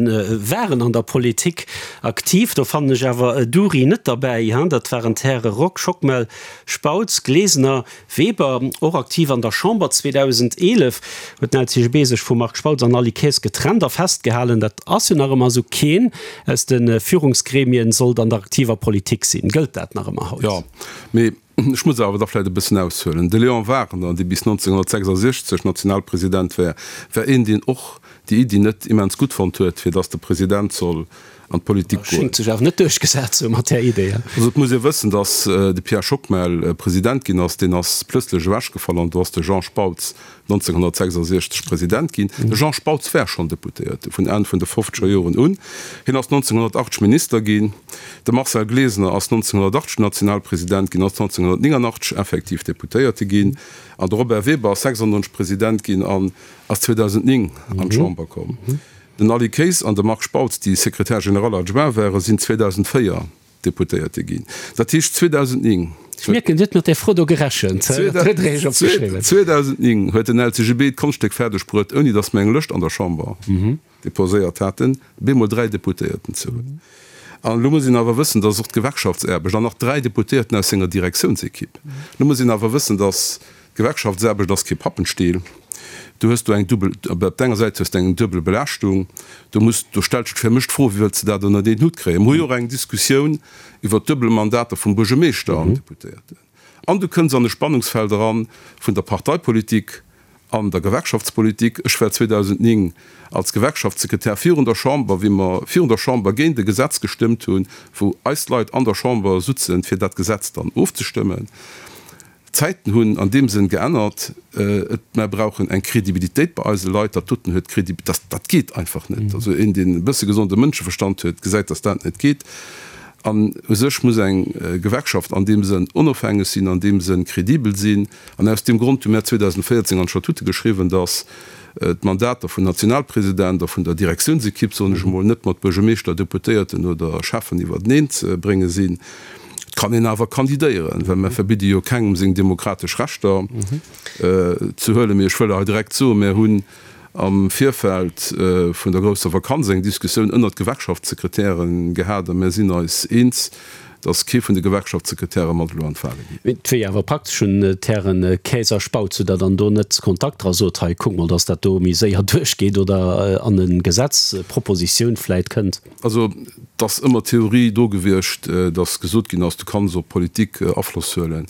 waren an der Politik aktiv, do fannen ech awer Dury net derbäi, dat waren d'Häre Rock, Schockmel, Spautz, Glesener, Weber, och aktiv an der Chamber. 2011 huet den LCGB sech vum Marc Spautz an Aly Kaes getrennt a festgehalen, dat ass jo nach ëmmer esou, keen aus de Führungsgremien sollt an der aktiver Politik sinn. Gëllt dat nach ëmmer haut?
Jo, mee ech muss awer da vläicht e bëssen aushuelen. De Léon Wagner, dee bis 1966 Nationalpresident war, war een, deen och déi Iddi net immens gutt fonnt huet, fir datt de President soll. an d'Politik goen.
Schéngt sech awer net duerchgesat ze hu mat där Idee.
Also et muss ee wëssen, datt de Pierre Schockmel President ginn ass, deen ass plëtzlech ewechgefall an do ass de Jean Spautz 1966 President ginn. De Jean Spautz war schonn Deputéierte vun Enn vun de fofzeger Joren un. Hien ass 1980 Minister ginn. De Marcel Glesener ass 1980 Nationalpresident ginn, ass 1989 effektiv Deputéierte ginn. An de Robert Weber ass 96 President ginn an ass 2009 an d'Chamber komm. Den Aly Kaes an de Marc Spautz, déi Secrétaire général adjoint waren, sinn 2004 Deputéierte ginn. Dat heescht 2009.
Ech mierken, Dir hutt mat där Fro do gerechent. Dat huet Der Iech opgeschriwwen.
2009 huet den LCGB d'Konschtstéck fäerdeg bruet, ouni datt mer eng Lëscht an der Chamber deposéiert haten, bemol 3 Deputéierten ze hunn. An elo muss een awer wëssen, datt och d'Gewerkschaftsaarbecht, an nach 3 Deputéierten aus senger Direktiounsequipe, elo muss een awer wëssen, datt D'Gewerkschaftsaarbecht ass kee Pappenstiel. Du hues do eng dubbel, op der enger Säit hues de eng duebel Belaaschtung. Do muss, do stellt sech fir mech d'Fro, wéi wëlls de dat ënnert een Hutt kréien? Mir hu jo och eng Diskussioun iwwert d'duebel Mandater vum Buergermeeschter an Deputéierten. An du kënns an e Spannungsfeld eran vun der Parteipolitik an der Gewerkschaftspolitik. Ech war 2009 als Gewerkschaftssekretär virun der Chamber, wéi mer virun der Chamber géint e Gesetz gestëmmt hunn, wou eis Leit an der Chamber sutzen, fir dat Gesetz dann ofzestëmmen. D'Zäiten hunn an deem Sënn geännert. Et, mer brauchen eng Kredibilitéit bei eise Leit. Dat doten huet Kredi, dat, dat geet einfach net. Also een, deen e bësse gesonde Mënscheverstand huet, gesäit, datt dat net geet. An u sech muss eng Gewerkschaft an deem Sënn onofhängeg sinn, an deem Sënn kredibel sinn. An aus deem Grond hu mär 2014 an d'Statute geschriwwen, datt d'Mandater vum Nationalpresident a vun der Direktiounsekipp, soen ech emol, net mat Buergermeeschter, Deputéierten oder Schäffen iwwerteneen ze brénge sinn. Et kann een awer kandidéieren, well mer verbidde jo kengem seng demokratesch Rechter ze huelen. Mee ech wëll hei direkt soen, Mer hunn am Virfeld vun der grousser Vakanz eng Diskussioun ënnert Gewerkschaftssekretäre gehat a mer sinn eis eens, datt kee vun de Gewerkschaftssekretäre mat elo an d'Wale
geet. Et wier jo awer praktesch un d'Hären Kaes a Spautz, hutt Der dann do net Kontakt dra sot, hei kuckt mol, datt dat do méi séier duerchgeet oder an e Gesetzpropositioun vläit kënnt?
Also, et ass ëmmer d'Theorie do gewiescht, datt gesot ginn ass, du kanns op Politik Afloss huelen.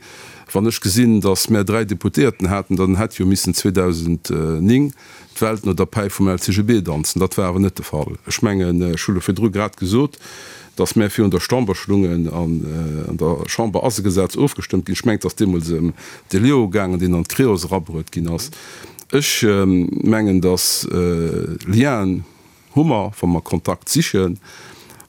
Wann ech gesinn, datt mär 3 Deputéierten haten, dann hätt jo missen 2009 d'Welt no der Päif vum LCGB danzen. Dat war awer net de Fall. Ech mengen, ech hu lo virdru grad gesot, datt mär virun der Chamber stungen an an der Chamber ass e Gesetz ofgestëmmt ginn. Ech mengen, et ass deemools ëm de Leo gaangen, deen an d'Creos erabruet ginn ass. Ech mengen, datt Lienen, Hu mer, wa mer Kontakt sichen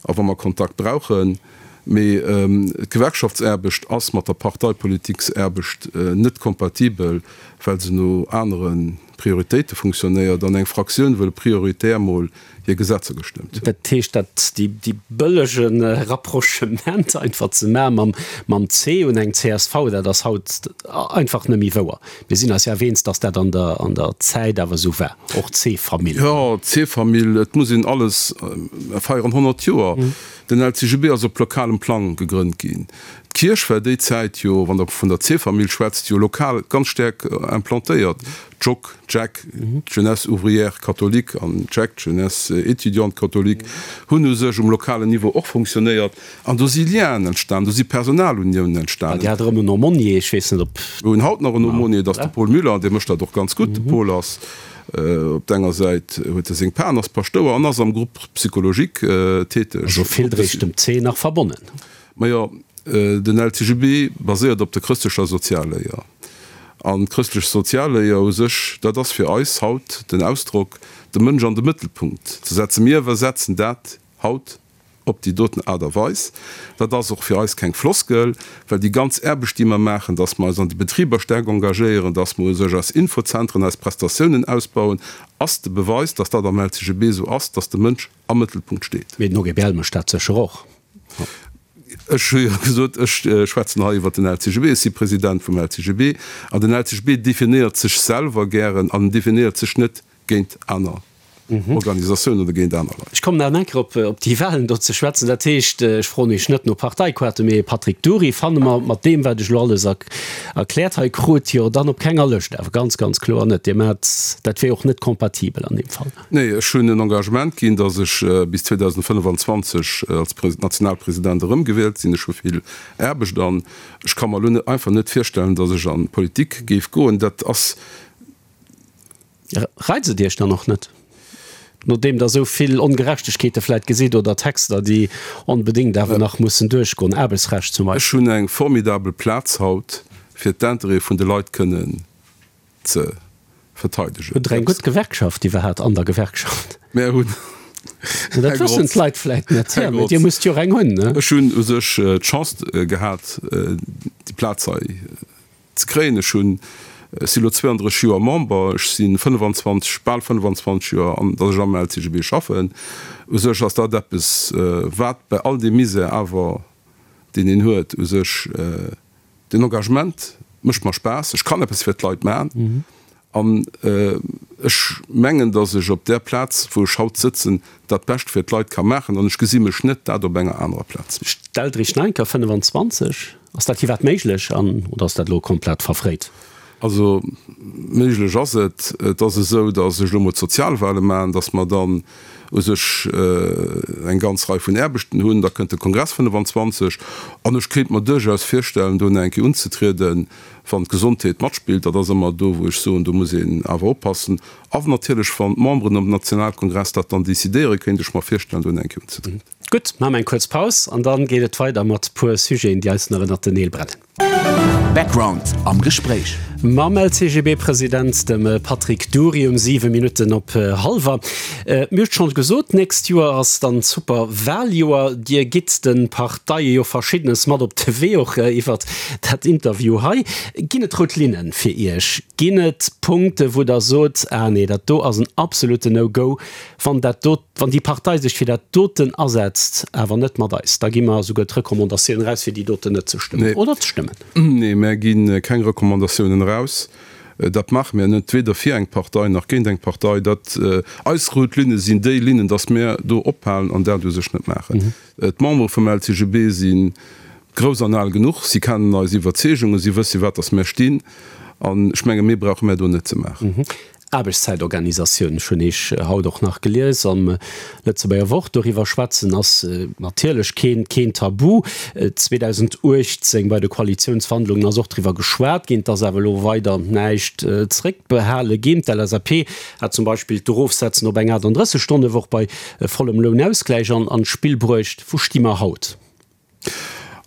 a wa mer Kontakt brauchen. Mee d'Gewerkschaftsaarbecht ass mat der Parteipolitiksaarbecht net kompatibel, well se no anere Prioritéite funktionéiert an eng Fraktioun wëll prioritär mol hir Gesetzer gestëmmt
hunn. Dat heescht, dat déi bëllege Rapprochement einfach ze maache mam C un eng csv, dat ass haut einfach net méi wouer. Mir sinn eis jo awer eens, dass dat an der, an der Zäit awer esou war, och d'C-Famill.
Jo, d'C-Famill, et muss een alles, mer feieren 100 Joer, den LCGB ass op lokalem Plang gegrënnt ginn. D'Kierch war déi Zäit jo, wann Der vun der C-Famill schwätzt, jo lokal ganz staark implantéiert. D'Joc, d'Jec, d'Jeunesse ouvrière catholique an d'Jec, d'Jeunesse étudiante catholique, hunn u sech um lokalen Niveau och funktionéiert. An do si Lienen entstan, do si Personaluniounen entstanen.
Dir hat erëm en Aumônier, ech weess net ob.
Mir hunn haut nach en Aumônier, dat ass de Paul Müller, an dee mécht dat och ganz gutt. De Paul ass op der enger Säit huet e seng Pan, ass Paschtouer an ass am Groupe psychologique täteg.
Also vill dréich dem C nach verbonnen.
Majo, den LCGB baséiert op der chrëstlecher Sozialléier. An d'chrëstlech Sozialléier u sech, dat ass fir eis haut den Ausdrock, de Mënsch an de Mëttelpunkt ze setzen. Mir iwwersetzen dat haut Op déi doten Aart a Weis. Dat ass och fir eis keng Floskel, well déi ganz Aarbecht, déi mer maachen, dass mer eis an de Betriber staark engagéieren, dass mer u sech eis Infozentren, eis Prestatiounen ausbauen, ass de Beweis, dass dat am LCGB esou ass, dass de Mënsch am Mëttelpunkt steet.
Mee den OGBL mécht dat sécher och.
Ech hu jo gesot, ech schwätzen hei iwwert den LCGB. Ech si President vum LCGB an den LCGB definéiert sech selwer gären an en definéiert sech net géint aner Organisatiounen oder géint aner Leit.
Ech kommen nach eng Kéier op op déi Wahlen do ze schwätzen. Dat heescht, ech froen Iech net no Parteikoarte, mee Patrick Dury fanne mer mat deem, wat ech elo alles erkläert hei krut, jo dann op kenger Lëscht. Awer ganz, ganz kloer net. Dir maacht, dat wier och net kompatibel an deem Fall.
Nee, ech hunn en Engagement ginn, datt ech bis 2025 als Nationalpresident erëmgewielt sinn. Ech hu vill Aarbecht an ech ka mer elo einfach net virstellen, datt ech an d'Politik géif goen. Dat ass
Reizt et Iech dann och net? Nodeem Der esou vill Ongerechtegkeete vläit gesitt oder Texter, déi onbedéngt awer nach mussen duerchgoen, Aarbechtsrecht zum
Beispill. Ech hunn eng formidabel Plaz haut, fir d'Intérêtë vun de Leit kënnen ze verteidegen.
Hutt Der eng gutt Gewerkschaft iwwerhaapt an der Gewerkschaft?
Mär hunn,
Dat wëssen d'Leit vläit net, jo, mee Dir musst jo och eng hunn, ne?
Ech hunn u sech d'Chance gehat, déi Plaz hei ze kréien. Ech hunn, ech si lo 32 Joer Member, ech si 25, bal 25 Joer, an datt ech am LCGB schaffen. U sech ass dat eppes, wat bei all deem Misär awer, deen een huet, u sech den Engagement mécht mer Spaass, ech kann eppes fir d'Leit man. An ech mengen, datt ech op där Plaz, wou ech haut sëtzen, dat Bescht fir d'Leit ka maachen. An ech gesi mech net dat op enger anerer Plaz.
Stellt Iech Neinker 25, Ass dat iwwerhaapt méiglech an, oder ass dat elo komplett verfréit?
Also méiglech ass et. Et ass esou, datt ech elo mol d'Sozialwale maachen, datt mer dann u sech eng ganz Rei vun Aarbechten hunn. Da kënnt de Kongress 25 an ech kéint mer duerchaus virstellen, do nach eng Kéier unzetrieden. Wann d'Gesondheet matspillt, dat ass ëmmer do, wou ech soen, do muss een awer oppassen. A natierlech, wann d'Memberen am Nationalkongress dat dann decidéieren, kéint ech mer virstellen, do eng Kéier unzetrieden.
Gutt, maache mer eng kuerz Paus an da geet et weider mat puer Sujeten, déi eis nach ënnert den Neel brennen.
Background am Gespréich.
Mam LCGB-President, dem Patrick Dury, um 7 Minutten op hallwer. Mir hunn et schonn gesot, d'nächst Joer ass dann d'Superwaljoer. Dir gitt de Parteie jo Verschiddenes mat op de Wee, och iwwert dat Interview hei. Ginn et rout Linne fir Iech? Ginn et Punkte wou Der sot, ah nee, dat do ass en absoluten No-Go, wann dat do, wann déi Partei sech fir dat doten asetzt, awer net mat eis, da gi mer esouguer d'Recommandatioun eraus, fir déi doten net ze stëmmen oder ze stëmmen?
Nee, mär gi keng Recommandatiounen eraus. Dat maache mär net, weder fir eng Partei nach géint eng Partei. Dat, eis rout Linne sinn déi Linnen, datt mär do ophalen an dat u sech net maachen. D'Membere vum LCGB si grouss an al genuch, si kennen eis Iwwerzeegungen, si wësse wat datt mär stinn an ech menge méi brauche mär do net ze maachen.
Aarbechtszäitorganisatioun, ech hunn eech haut och nach gelies am Lëtzebuerger Wort, doriwwer schwätzen ass natierlech keen keen Tabu. 2018 bei de Koalitiounsverhandlungen ass och driwwer geschwat ginn, et ass awer elo weider näischt zréckbehale ginn. D'LSAP hat zum Beispill d'Erofsetzen op eng 38 Stonne-Woch bei vollem Lounausgläich an d'Spill bruecht. Wou sti mer haut?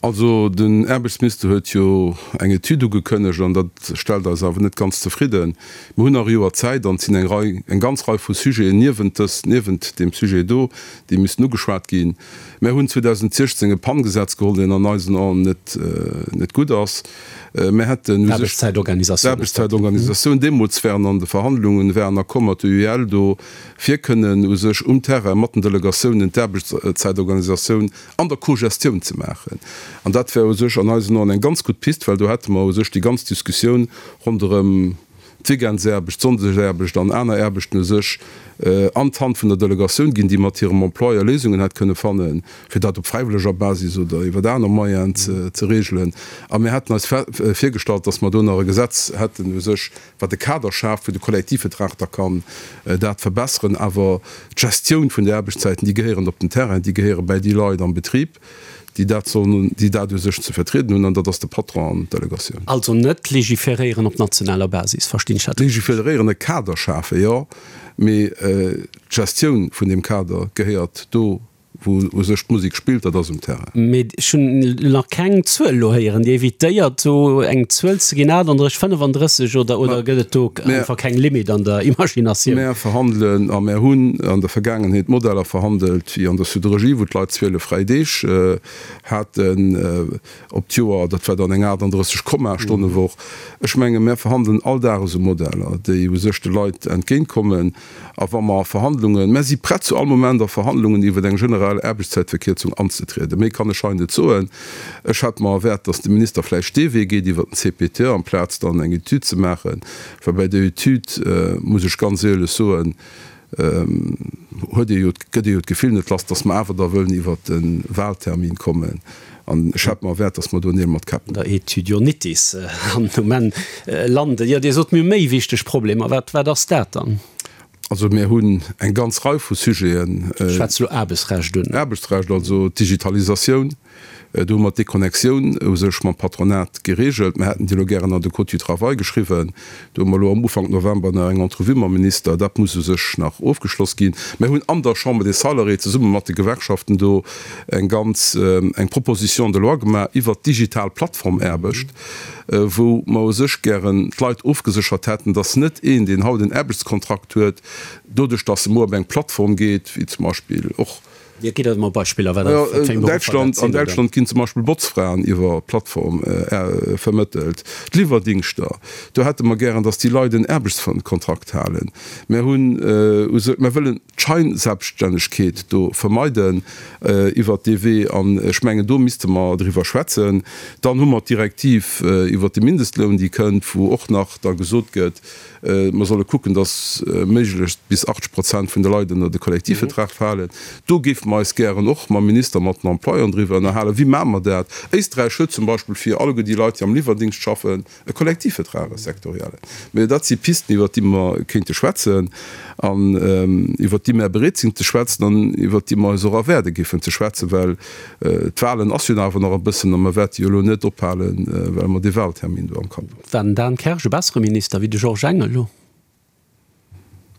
Also den Aarbechtsminister huet jo eng Etüd ugekënnegt an dat stellt eis awer net ganz zefridden. Mir hunn nach e Joer Zäit an et sinn eng Rei, eng ganz Rei vu Sujeten niewent dës, niewent deem Sujet do, déi missten ugeschwat ginn. Mär hunn 2016 e PAN-Gesetz geholl, deen an eisen Aen net, net gutt ass. Mär hätten u sech.
D'Aarbechtszäitorganisatioun.
D'Aarbechtszäitorganisatioun. Deemools waren an de Verhandlungen, war en Accord mat der UEL do, fir kënnen u sech um Terrain mat den Delegatiounen d'Aarbechtszäitorganisatioun an der Cogestioun ze maachen. An dat wär u sech an eisen Oen eng ganz gutt Pist, well do hätte mer u sech déi ganz Diskussioun ronderëm d'Weekendsaarbecht, d'Sonndesaarbecht an aner Aarbechten u sech an d'Hand vun der Delegatioun ginn, déi mat hirem Employeur Léisungen hätt kënne fannen, fir dat op fräiwëlleger Basis oder iwwer aner Moyenen ze regelen. A mir hätten eis virgestallt, dass mer do nach e Gesetz hätten u sech, wat e Kader schaaft, wou de Kollektivvertrag da kann dat verbesseren, awer d'Gestioun vun de Aarbechtszäiten, déi gehéieren op den Terrain, déi gehéiere bäi déi Leit am Betrib, déi dat sollen, déi dat u sech ze vertrieden hunn, an dat ass de Patron an d'Delegatioun.
Also net legiferéieren op nationaler Basis, verstinn ech dat richteg?
Legiferéieren, e Kader schafen, jo, mee d'Gestioun vun deem Kader gehéiert do Wou u sech d'Musek spillt, dat ass um Terrain.
Mee ech hunn nach keng Zuel elo héieren. Dir evitéiert do eng Zuel ze ginn, 38, 35 oder, oder gëtt et do einfach keng Limit an der Imaginatioun?
Mär verhandelen a mär hunn an der Vergaangenheet Modeller verhandelt, wéi an der Siderurgie, wou d'Leit 12 fräi Deeg haten op d'Joer. Dat war dann eng 38 Komma Stonnewoch. Ech menge mär verhandelen all Dag esou Modeller, déi u sech de Leit entgéintkommen. A wa mer a Verhandlungen, mär si prett zu all Moment a Verhandlungen iwwer eng generell Aarbechtszäitverkierzung anzetrieden, méi kann ech hei net soen. Ech hätt mer erwäert, datt de Minister vläicht dee Wee geet iwwer den CPTE amplaz dann eng Etüd ze maachen, well bei der Etüd, muss ech ganz éierlech soen, huet ee jo, gëtt ee jo d'Gefill net lass, datt mer awer da wëllen iwwer de Wahltermin kommen. An ech hätt mer erwäert, datt mer do Neel mat Käpp
Der Etüdionitis an um Enn landen. Jo, Dir sot, mir hu méi wichteg Problemer. Wat, wat ass dat dann?
Also mir hunn eng ganz Rei vu Sujeten.
Ech schwätze elo Aarbechtsrecht un.
Aarbechtsrecht, also d'Digitalisatioun, do hu mer d'Deconnectioun u sech mam Patronat geregelt. Mir hätten déi elo gären an de Code du travail geschriwwen. Do hu mer elo am Ufank November nach eng Entrevue mam Minister. Dat muss u sech nach ofgeschloss ginn. Mir hunn an der Chambre des Salariés zesumme mat de Gewerkschaften do eng ganz, eng Proposition de loi gemaach iwwert d'digital Plattformaarbecht. wou mer u sech gären d'Leit ofgeséchert hätten, dass net een, deen haut en Aarbechtskontrakt huet, doduerch dass e muer op eng Plattform geet, wéi zum Beispill och.
Jo, gitt eis emol Beispiller, wat dat fir eng
Beruffer dat sinn, oder? An Däitschland ginn zum Beispill Botzfraen iwwer Plattform vermëttelt, d'Liwwerdingschter, do hätte mer gären, dass déi Leit en Aarbechtskontrakt halen. Mer hunn u sech, mer wëllen. d'Scheinselbststännegkeet do vermeiden iwwert dee Wee, an ech mengen, do misste mer driwwer schwätzen. Dann hu mer d'Direktiv iwwert de Mindestloun, déi kënnt, wou och nach da gesot gëtt, mer solle kucken, dass méiglechst bis 80 Prozent vun de Leit ënner de Kollektivvertrag falen. Do géife mer eis gären och mam Minister, mat den Employeuren driwwer ënnerhalen, Wéi maache mer dat? Éisträich huet zum Beispill fir alleguer déi Leit, déi am Liwwerdingscht schaffen, E Kollektivvertrag, e sektoriellen. Mä dat si Pisten, iwwert déi mer kéinte schwätzen an iwwert déi mer bereet sinn ze schwätzen an iwwert déi mer eis och erwaarde géifen ze schwätzen, well d'Wahlen ass jo nach awer nach e bëssen a mer wäerte jo elo net ophalen, well mer dee Wahltermin do am Kapp hunn.
War den Dan Kersch e bessere Minister wéi de Georges Engel elo?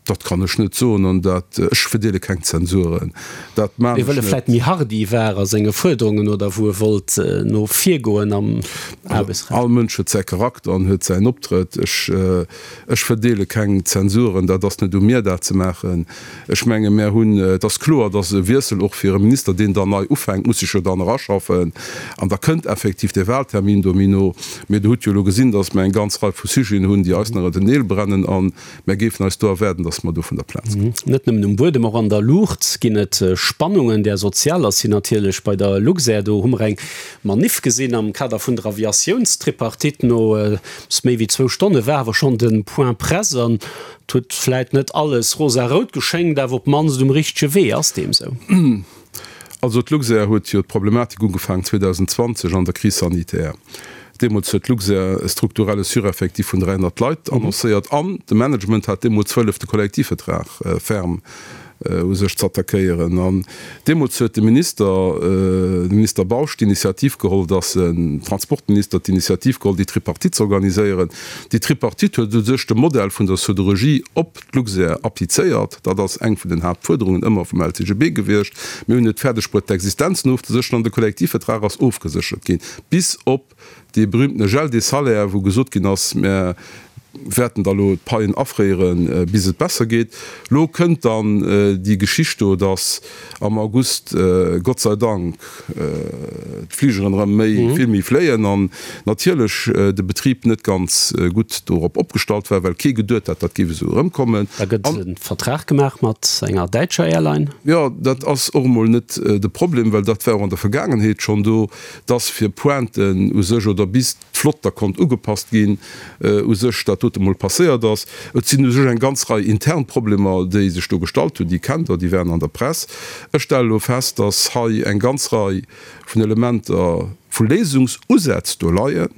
Dat kann ech net soen an dat, ech verdeele keng Zensuren, dat
maan ech net. Wëll e vläit méi hardi war a senge Fuerderungen oder wou e wollt no vir goen am Aarbechtsrecht?
All Mënsch huet säi Charakter an huet säin Optrëtt. Ech, ech verdeele keng Zensuren, dat ass net u mir dat ze maachen. Ech menge mär hunn, et ass kloer, datt e Wiessel och fir e Minister, deen dann nei ufänkt, muss sech jo dann eraschaffen an da kënnt effektiv dee Wahltermin do méi no. Mee Der hutt jo elo gesinn, datt mer eng ganz Rei vu Sujeten hunn, déi eis nach ënner den Neel brennen an Mär géifen eis do erwaarden, dass mer do vun der Plaz
kommen. Net nëmmen um Buedem, och an der Luucht ginn et Spannungen. Där sozialer sinn natierlech bei der Luxair. Do hu mer eng Maniff gesinn am Kader vun der Aviatiounstripartite. No eppes méi wéi zwou Stonne war awer schonn de Point Presse an et huet vläit net alles rosarout geschéngt, awer op d'mannst um richtege Wee. Ass deem sou?
Also d'Luxair huet jo d'Problematik ugefaangen 2020 an der Crise sanitaire. Deemools huet d'Luxair e strukturelle Sureffectif vun 300 Leit annoncéiert an de Management hat deemools wëllef de Kollektivvertrag ferm u sech z'attackéieren. An deemools huet de Minister, de Minister Bausch, d'Initiativ geholl, datt en Transportminister d'Initiativ geholl, déi Tripartite z'organiséieren. Déi Tripartite huet u sech de Modell vun der Siderurgie op d'Luxair applizéiert. Dat ass eng vun den Haaptfuerderungen ëmmer vum LCGB gewiescht. Mir hunn et fäerdeg bruet, d'Existenzen ofzesécheren an de Kollektivvertrag ass ofgeséchert ginn, bis op dee berühmtene Gel des salaires, wou gesot ginn ass, Mir wäerten da lo d'Paien afréieren, bis et besser geet. Lo kënnt dann déi Geschicht do, datt am August, Gott sei Dank, d'Fligeren erëm méi, vill méi fléien an natierlech de Betrib net ganz gutt dorop opgestallt war, well kee geduet hat, dat géif esou erëmkommen.
Da gëtt e Vertrag gemaach mat enger däitscher Airline.
Jo, dat ass och emol net de Problem, well dat war och an der Vergaangenheet schonn do, dass fir Pointen u sech oder bis d'Flott da konnt ugepasst ginn, u sech dat dote mol passéiert ass. Et sinn u sech eng ganz Rei intern Problemer, déi sech do gestallt hunn, déi kennt Der, déi waren an der Press. Ech stelle elo fest, dass hei eng ganz Rei vun Elementer, vu Léisungsusätz do leien.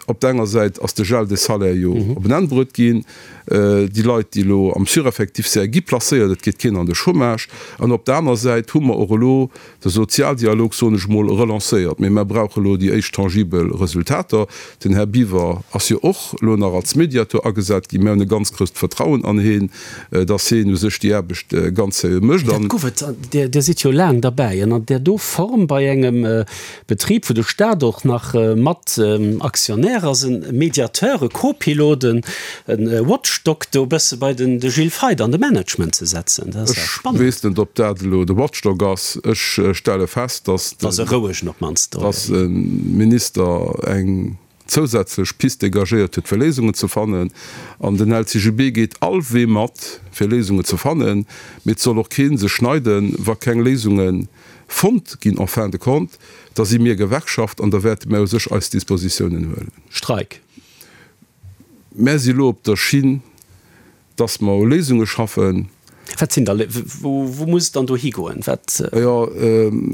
Op der enger Säit ass de Gel des salaires jo op en Enn bruet ginn. Déi Leit, déi elo am Sureffectif sinn, gi placéiert, et geet keen an de Chômage. An op der aner Säit hu mer och elo de Sozialdialog, soen ech emol, relancéiert. Mee mer brauche elo déi éischt tangibel Resultater. Den Här Biwer ass jo och elo nach als Mediateur agesat ginn. Mir hunn e ganz grousst Vertrauen an heen, dass heen u sech déi Aarbecht ganz seriö mécht.
Dat gouf et, Dir sidd jo laang derbäi, an an där do Form bei engem Betrib, wou de Staat och nach mat Aktionär ass, e Mediateur, e Co-Pilot, e Watchdog do e bësse bei den de Gilles Feith an de Management ze setzen. Dat ass ja
spannend. Ech weess net, ob dat elo de Watchdog ass. Ech stelle fest, dass
de. Ass e rouegen op d'mannst.
Dass e Minister eng zousätzlech Pist dégagéiert huet, fir Léisungen ze fannen. An den LCGB geet all Wee mat, fir Léisungen ze fannen. Mee et soll och kee sech schneiden, wa keng Léisunge fonnt ginn en fin de compte, da si mir Gewerkschaft an da wäerte mir u sech eis Dispositiounen huelen.
Streik.
Mär si elo op der Schinn, dass mer u Léisunge schaffen.
Wat sinn da, wou, wou muss et dann do higoen? Wat,
Jo,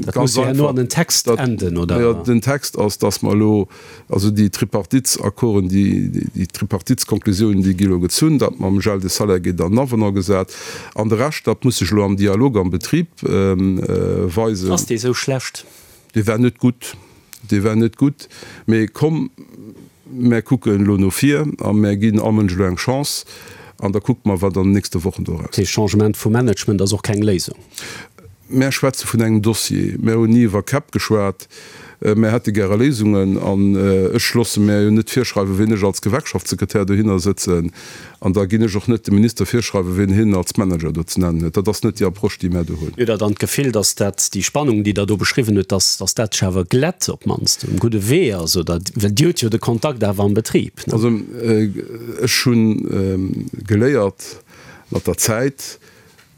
dat muss jo herno an den Text enden, oder?
Jo, den Text ass, dass mer elo, also déi Tripartitsaccorden, déi, déi Tripartitskonklusiounen, déi gi elo gezunn, dat mam Gel de salaire gétt an den Avenant gesat. An de Rescht, dat muss sech elo am Dialog am Betrib weisen.
Ass dee sou schlecht?
Dee war net gutt, dee war net gutt. Mee komm, mär kucken elo no vir a mär ginn all Mënsch elo eng Chance an da kucke mer, wat an den nächste Wochen do
erauskennt. Dee Changement vum Management ass och keng Léisung.
Mär schwätze vun engem Dossier. Mär hunn ni iwwer Käpp geschwat. Mär hätte gäre Léisungen. An ech loosse mär jo net virschreiwen, wien ech als Gewerkschaftssekretär dohinner sëtzen. An da ginn ech och net dem Minister virschreiwen, wien hien als Manager do ze nennen huet. Dat ass net déi Approche, déi mär do hunn.
Hutt Der dann d'Gefill, datt dat, déi Spannung, déi Der do beschriwwen hutt, datt, datt dat sech awer glätt, op d'mannst um gudde Wee ass? Oder, well Dir hutt jo de Kontakt awer am Betrib,
ne? Also ech hu geléiert mat der Zäit,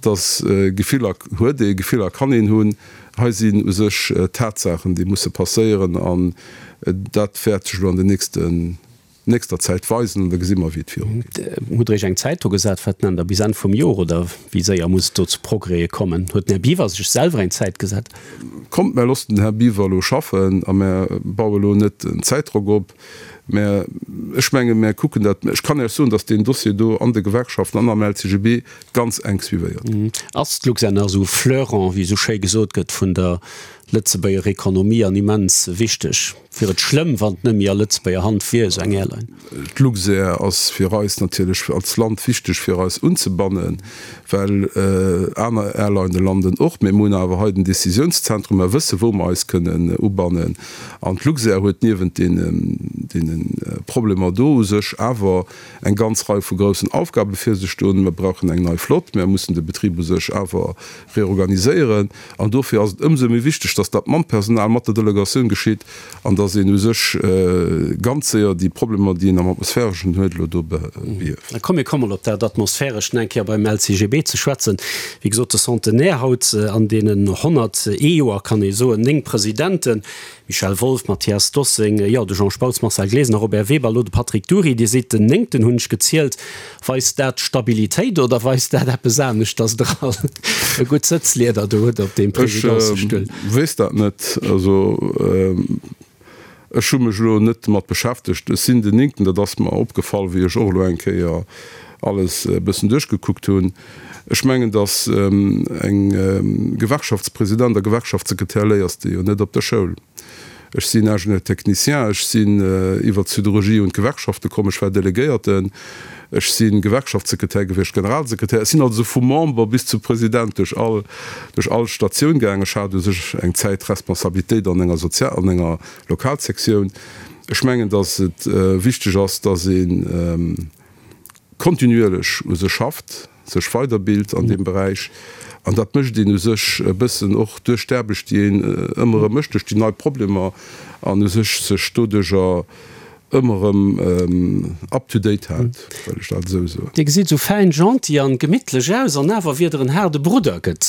datt Gefiller huet ee, Gefiller kann een hunn. Hei sinn u sech Tatsaachen, déi musse passéieren an dat wäert sech elo an den nächsten nächster Zäit weisen an da gesi mer wéi et viru
geet. Hutt Der Iech eng Zäit do gesat? Wat nennt Der, bis Enn vum Jor oder wéi séier muss et do zu Progrèse kommen? Huet den Här Biwer sech selwer eng Zäit gesat?
Kommt, mär loossen den Här Biwer elo schaffen a mär baue elo net en Zäitdrock op. Mä ech menge mär kucken dat. Ech kann Iech soen, datt deen Dossier do an de Gewerkschaften an am LCGB ganz enk suivéiert
gëtt. Ass d'Luxair nach esou Fleuron, wéi esou schéi gesot gëtt, vun der Lëtzebuerger Ekonomie an immens wichteg? Wier et schlëmm, wann et net méi a Lëtzebuerger Hand wier, esou eng Airline?
D'Luxair ass fir eis natierlech als Land wichteg fir eis unzebannen, well aner Airlinë landen och. Mee mir hunn awer hei den Décisiounszentrum, mer wësse wou mer eis kënnen ubannen. An d'Luxair huet niewent deene Problemer do u sech awer eng ganz Rei vu groussen Aufgabe fir sech stoen. Mer brauchen eng nei Flott, mer mussen de Betrib u sech awer reorganiséieren. An dofir ass et ëmsou méi wichteg, dass dat mam Personal, mat der Delegatioun geschitt an dass een u sech ganz séier déi Problemer, déi een am Atmosphäreschen huet, elo do behieft.
Da komm, mir kommen op dat Atmosphärescht nach eng Kéier beim LCGB ze schwätzen. Wéi gesot, de Centenaire haut an deenen 101 Joer, kann ee soen, 9 Presidenten, Michel Wolff, Mathias Dossing, jo, de Jean Spautz, Marcel Glesener, Robert Weber, elo de Patrick Dury. Dir sidd den Néngten, hunn ech gezielt. Weist dat Stabilitéit oder weist dat eppes anescht, datt Der all e gutt Sëtzlieder do hutt op deem
Presidencestull? Ech weess dat net. Also ech hu mech elo net domat beschäftegt. Ech sinn den Néngten, dat ass mer opgefall, wéi ech och elo eng Kéier alles e bëssen duerchgekuckt hunn. Ech mengen, datt eng Gewerkschaftspresident a Gewerkschaftssekretär léiers de jo net op der Schoul. Ech sinn Ingénieur technicien, ech sinn iwwer d'Siderurgie un d'Gewerkschafte komm, ech war Delegéierten, ech si Gewerkschaftssekretär gewiescht, Generalsekretär. Ech sinn also vu Member bis zu President duerch all, duerch all Statioun gaangen. Ech hat u sech eng Zäit Responsabilitéit an enger Sozial-, an enger Lokalsektioun. Ech mengen, datt et wichteg ass, datt een, kontinuierlech u sech schafft, sech weiderbilt an deem Beräich. An dat mécht een u sech e bëssen och duerch d'Aarbecht, déi een ëmmer erëm mécht, duerch déi nei Problemer an u sech sech doduercher ëmmer erëm up to date hält, wëll ech dat esou soen.
Dir gesitt esou fäin, gentil an gemittlech aus, an awer wier Der en haarde Brudder, gëtt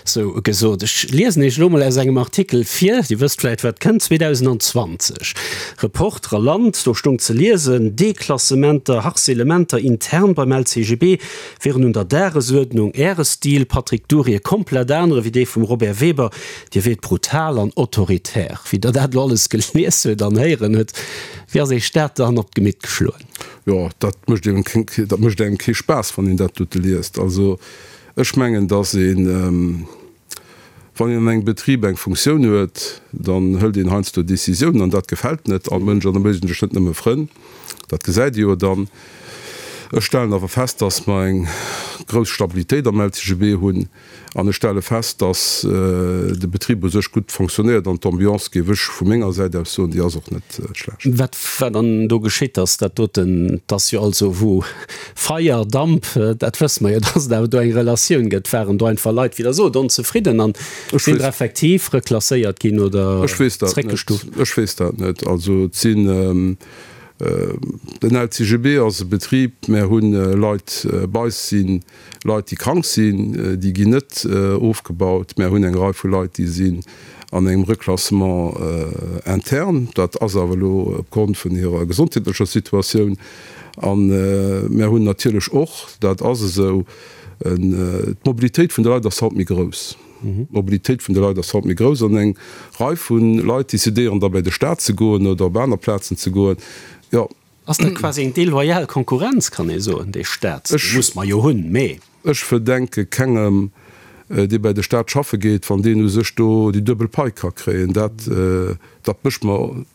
sou gesot. Ech liesen Iech elo mol aus engem Artikel vir, Dir wësst vläit wat kënnt, 2020. Reporter a Land, do stoung ze liesen, Deklassementer, Harcelementer intern beim LCGB wieren un der Dagesuerdnung. Äre Stil, Patrick Dury, e komplett anere wéi dee vum Robert Weber, Dir wiert brutal an autoritär. Wéi Der dat elo alles gelies huet an héieren huet, wéi ass Iech dat dann op d'Gemitt geschloen?
Jo, dat mécht engem kee Spaass, wann een dat dote liest. Also ech mengen, datt een, Wann een an engem Betrib eng Funktioun huet, dann hëlt een heiansdo Décisiounen an dat gefält net all Mënsch an da mécht een sech net nëmme Frënn. Dat gesäit ee jo dann. Ech stellen awer fest, dass mer eng grouss Stabilitéit am LCGB hunn an ech stelle fest, dass de Betrib u sech gutt fonctionnéiert an d'Ambiance, géif ech vu menger Säit aus soen, déi ass och net schlecht.
Wat war dann do geschitt, dass dat doten, 't ass jo also wou Feier, Damp, dat wësse mer jo, dass et awer do eng Relatioun gëtt. Waren do einfach Leit, wéi Der sot, onzefridden an sinn der effektiv reklasséiert ginn oder
zréckgestuft? Ech weess dat net. Also et sinn, den LCGB ass e Betrib, mär hu Leit bei eis sinn, Leit déi krank sinn, déi ginn net ofgebaut. Mär hunn eng Rei vu Leit, déi sinn an engem Reklassement interne, dat ass awer elo opgrond vun hirer gesondheetlecher Situatioun. A mär hunn natierlech och, dat ass esou. D'Mobilitéit vun de Leit ass haut méi grouss. D'Mobilitéit vun de Leit ass haut méi grouss an eng Rei vu Leit decidéieren da bei de Staat ze goen oder op aner Plazen ze goen. Jo.
Ass dat quasi eng deloyal Konkurrenz, kann ee soen, dee Staat, dee muss mer jo hunn, mee.
Ech verdenke kengem, dee bei de Staat schaffe geet, wann deen u sech do déi duebel Pai ka kréien. Dat, dat mécht mer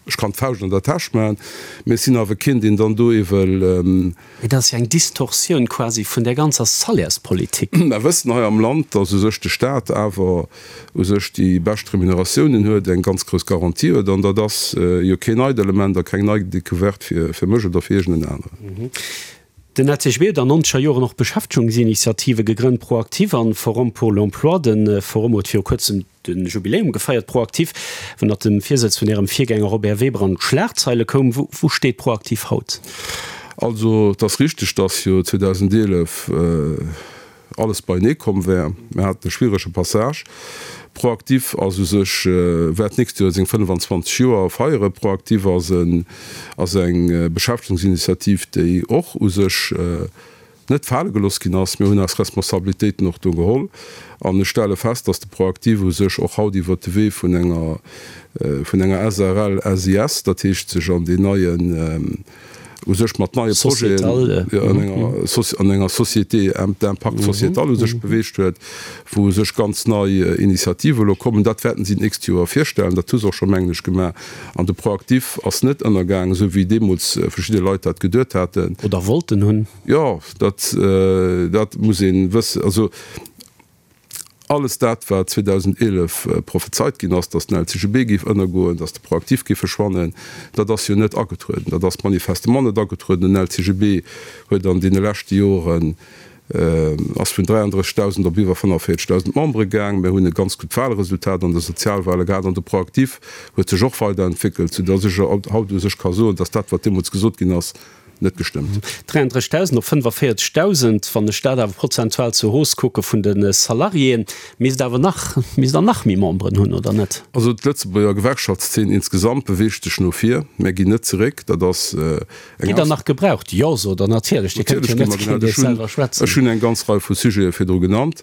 Ech kann d'Fauscht an der Täsch maachen, mee ech sinn awer keen, deen dann do ewell.
Mee dat ass jo eng Distorsioun quasi vun där ganzer Salairspolitik.
Mer wëssen hei am Land, dass u sech de Staat awer u sech déi bescht Remuneratiounen huet, eng ganz grouss Garantie huet. An dat ass jo keen neit Element a keng nei Decouverte fir mech oder fir iergend en aneren.
Den LCGB huet an nonzeger Joren och Beschäftegungsinitiative gegrënnt, ProActif an Forum pour l'emploi. De Forum huet viru kuerzem de Jubiläum gefeiert. ProActif, ënnert dem Virsëtz vun Ärem Virgänger Robert Weber an d'Schlagzeile koum. Wou steet ProActif haut?
Also et ass richteg, datt jo 2011 alles beienee komm wär. Mir haten e schwierege Passage. ProActif ass u sech, wäert d'nächst Joer seng 25 Joer feieren. ProActif ass en, ass eng Beschäftegungsinitiativ, déi och u sech net fale gelooss ginn ass. Mir hunn eis Responsabilitéiten och do geholl. An ech stelle fest, dass de ProActif u sech och haut iwwert de Wee vun enger, vun enger SARL SIS, dat heescht sech an deen neien, u sech mat neie Projeten an enger Société d'impact sociétal u sech beweegt huet, wou u sech ganz nei Initiative elo kommen. Dat wäerten si d'nächst Joer virstellen. Dat hu se och scho, mengen ech, gemaach. An de ProActif ass net ënnergaangen, esou wéi deemools verschidde Leit dat geduet haten.
Oder wollten hunn.
Jo, dat, dat muss ee wëssen. Also. Alles dat, wat 2011 prophezeit ginn ass, datt den LCGB géif ënnergoen, datt de ProActif géif verschwannen, dat ass jo net agetrueden. Dat ass manifestement net agetrueden. Den LCGB huet an deene leschte Joren, ass vun 33.000 op iwwer 45.000 Membere gaang. Mir hunn e ganz gutt Wahlresultat an de Sozialwahle gehat an de ProActif huet sech och weiderentwéckelt, soudatt ech haut u sech ka soen, datt dat, wat deemools gesot ginn ass, net gestëmmt.
33.000 op 45.000, wann ech dat awer prozentual zur Hausse kucke vun de Salariéen, misst awer nach, misst Der nach méi Memberen hunn, oder net?
Also d'Lëtzebuerger Gewerkschaftszeen insgesamt beweegt sech no vir. Mär ginn net zeréck. Dat ass eng.
Gitt Der nach gebraucht? Jo, sot Der natierlech. Dir kënnt jo net géint Iech selwer schwätzen.
Ech hunn eng ganz Rei vu Sujete virdru genannt.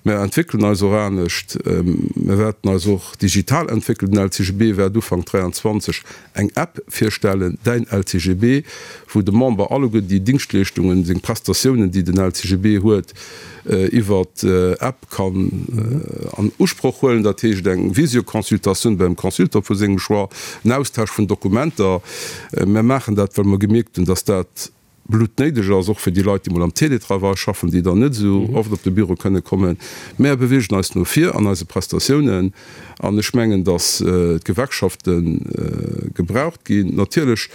Mär entwéckelen eis och anescht. Mär wäerten eis och digital entwéckelen. Den LCGB wäert Ufank 23 eng App virstellen, Däin LCGB, wou de Member alleguer déi Dingschtleeschtungen, seng Prestatiounen, déi den LCGB huet, iwwer App kann an Usproch huelen. Dat heescht eng Visioconsultatioun beim Consultant vu sengem Choix, en Austausch vun Dokumenter. Mir maachen dat, well mer gemierkt hunn, dass dat bluttnéideg ass, och fir déi Leit, déi mol am Télétravail schaffen, déi dann net esou oft op de Büro kënne kommen. Mär beweegen eis no vir an eise Prestatiounen an ech mengen, datt d'Gewerkschafte gebraucht ginn. Natierlech,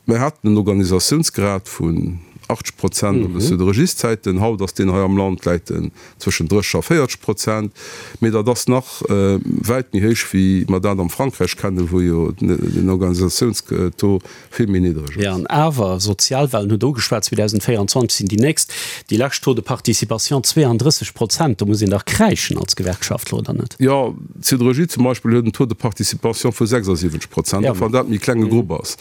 mär haten en Organisatiounsgrad vun 80 Prozent an de Siderurgieszäiten, haut ass deen hei am Land, läit en zwëschen 30 a 40 Prozent, mee dat ass nach wäit méi héich wéi mer dat am Frankräich kennen, wou jo den Organisatiounstaux vill méi niddreg
ass. Jo, an awer, Sozialwahlen hutt Der ugeschwat, 2024 sinn déi nächst. Déi lescht Taux de participation 32 Prozent, do muss een dach kräischen als Gewerkschaftler, oder net?
Jo, d'Siderurgie zum Beispill huet en Taux de participation vu 76 Prozent, och wann dat e méi klenge Grupp ass.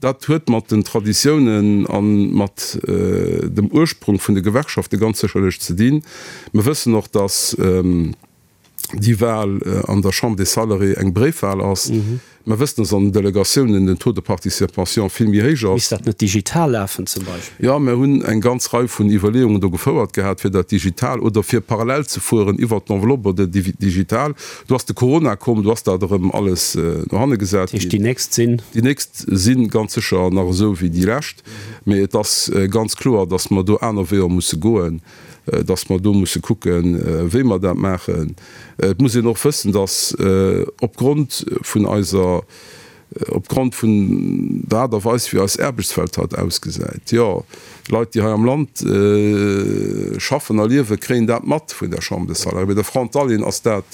Dat huet mat den Traditiounen a mat dem Ursprung vun de Gewerkschafte ganz sécherlech ze dinn. Mir wëssen och, datt déi Wahl an der Chambre des Salariés eng Bréifwahl ass. Mer wëssen, dass an den Delegatiounen den Taux de participation vill méi héich ass.
Misst dat net digital lafen zum Beispill?
Jo, mer hunn eng ganz Rei vun Iwwerleeungen do gefouert gehat, fir dat digital oder fir parallel ze fueren iwwert d'Enveloppe oder digital. Do ass de Corona komm, do ass dat erëm alles no hanne gesat
ginn. Dat heescht, déi nächst sinn?
Déi nächst si ganz sécher nach esou wéi déi lescht. Mee et ass ganz kloer, dass mer do aner Weeër musse goen. dass mer do musse kucken, wéi mer dat maachen. Et muss een och wëssen, dass opgrond vun eiser, opgrond vun der Aart a Weis, wéi eis Aarbechtswelt haut ausgesäit, jo, Leit, déi hei am Land schaffen a liewen, kréien dat mat vun der Chambre des Salariés. Bei de Frontalieren ass dat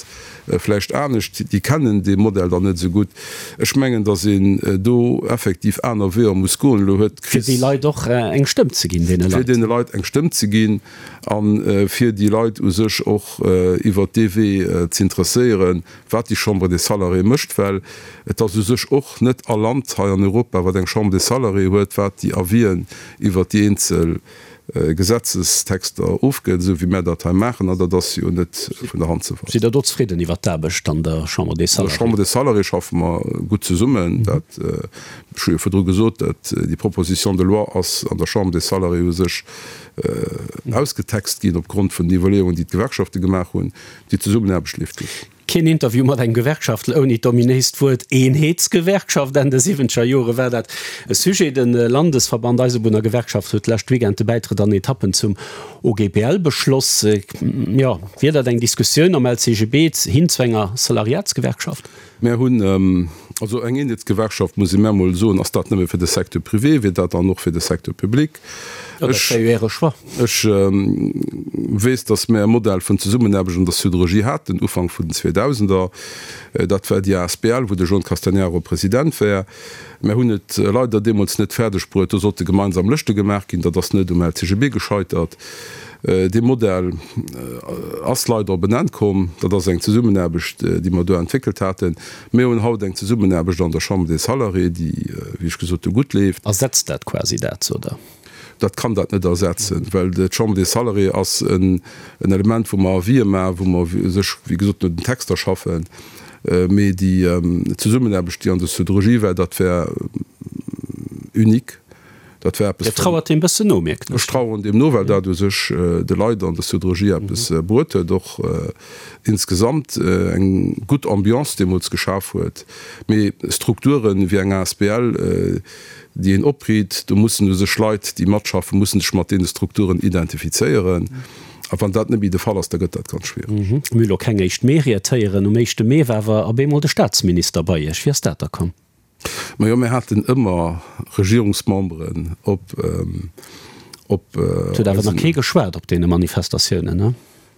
vläicht anescht, déi kennen dee Modell dann net esou gutt. Ech mengen, datt een do effektiv aner Weeër muss goen. Elo huet
d'Kris. Fir déi Leit och eng Stëmm ze ginn, deene
Leit. Fir deene Leit eng Stëmm ze ginn a fir déi Leit u sech och iwwert dee Wee z'interesséieren, wat déi Chambre des Salariés mécht. Well et ass u sech och net all Land hei an Europa, wat eng Chambre des Salariés huet, wat déi Avisen iwwert déi eenzel. Gesetzestexter ofgëtt, esou wéi mär dat hei maachen, an dat ass jo net vun der Hand ze weisen.
Sidd Der do zefridden iwwert d'Aarbecht an der Chambre des
Salariés? An der Chambre des Salariés schaffe mer gutt zesummen. Dat, ech hu jo virdru gesot, dat déi Proposition de loi ass an der Chambre des Salariés u sech ausgetext ginn opgrond vun den Iwwerleeungen, déi d'Gewerkschafte gemaach hunn. Déi Zesummenaarbecht leeft gutt.
Keen Interview mat engem Gewerkschaftler ouni d'ominéist Wuert Eenheetsgewerkschaft. Enn de siwwenzeger Jore war dat e Sujet. De Landesverband Eisebunnergewerkschaft huet d'lescht Weekend de Bäitrëtt an Etappen zum OGBL beschloss. Jo, wier dat eng Diskussioun am LCGB hin zu enger Salariatsgewerkschaft?
Mär hunn also eng Eenheetsgewerkschaft, muss ee mär emol soen, ass dat nëmme fir de Secteur privé, wier dat dann och fir de Secteur public?
Jo, dat wär jo Äre Choix.
Ech weess, datt mär e Modell vun Zesummenaarbecht an der Siderurgie haten, Ufank vun den Zweedausender. Dat war déi asbl, wou de Jean Castagnaro President war. Mär hunn et leider deemools net fäerdeg bruet, do sollte gemeinsam Lëschte gemaach ginn. Dat ass net um LCGB gescheitert. Dee Modell ass leider op en Enn komm. Dat ass eng Zesummenaarbecht, déi mer do entwéckelt haten. Mir hunn haut eng Zesummenaarbecht an der Chambre des Salariés, déi, wéi ech gesot hu, gutt leeft.
Ersetzt dat quasi dat, oder?
Dat kann dat net ersetzen, well d'Chambre des Salariés ass en Element, wou mer Avisë maachen, wou mer sech, wéi gesot, no den Texter schaffen. Mee déi Zesummenaarbecht, déi an der Siderurgie war, dat war unique.
Dat war eppes. Dir trauert deem bëssen no, mierken
ech. Ech traueren deem no, well dat u sech de Leit an der Siderurgie eppes bruet huet, och insgesamt eng gutt Ambiance deemools geschaf huet. Mee Strukturen wéi eng asbl, déi een opriit, do mussen u sech Leit, déi matschaffen, mussen sech mat deene Strukturen identifizéieren. A wann dat net méi de Fall ass, da gëtt dat ganz schwiereg.
Mir hu lo keng éischt Mee-Ried héieren. Um éischte Mee war awer op eemol de Staatsminister bei Iech. Wéi ass dat da komm?
Majo, mir haten ëmmer Regierungsmemberen op,
op Et huet awer nach kee geschwat op deene Manifestatiounen, ne?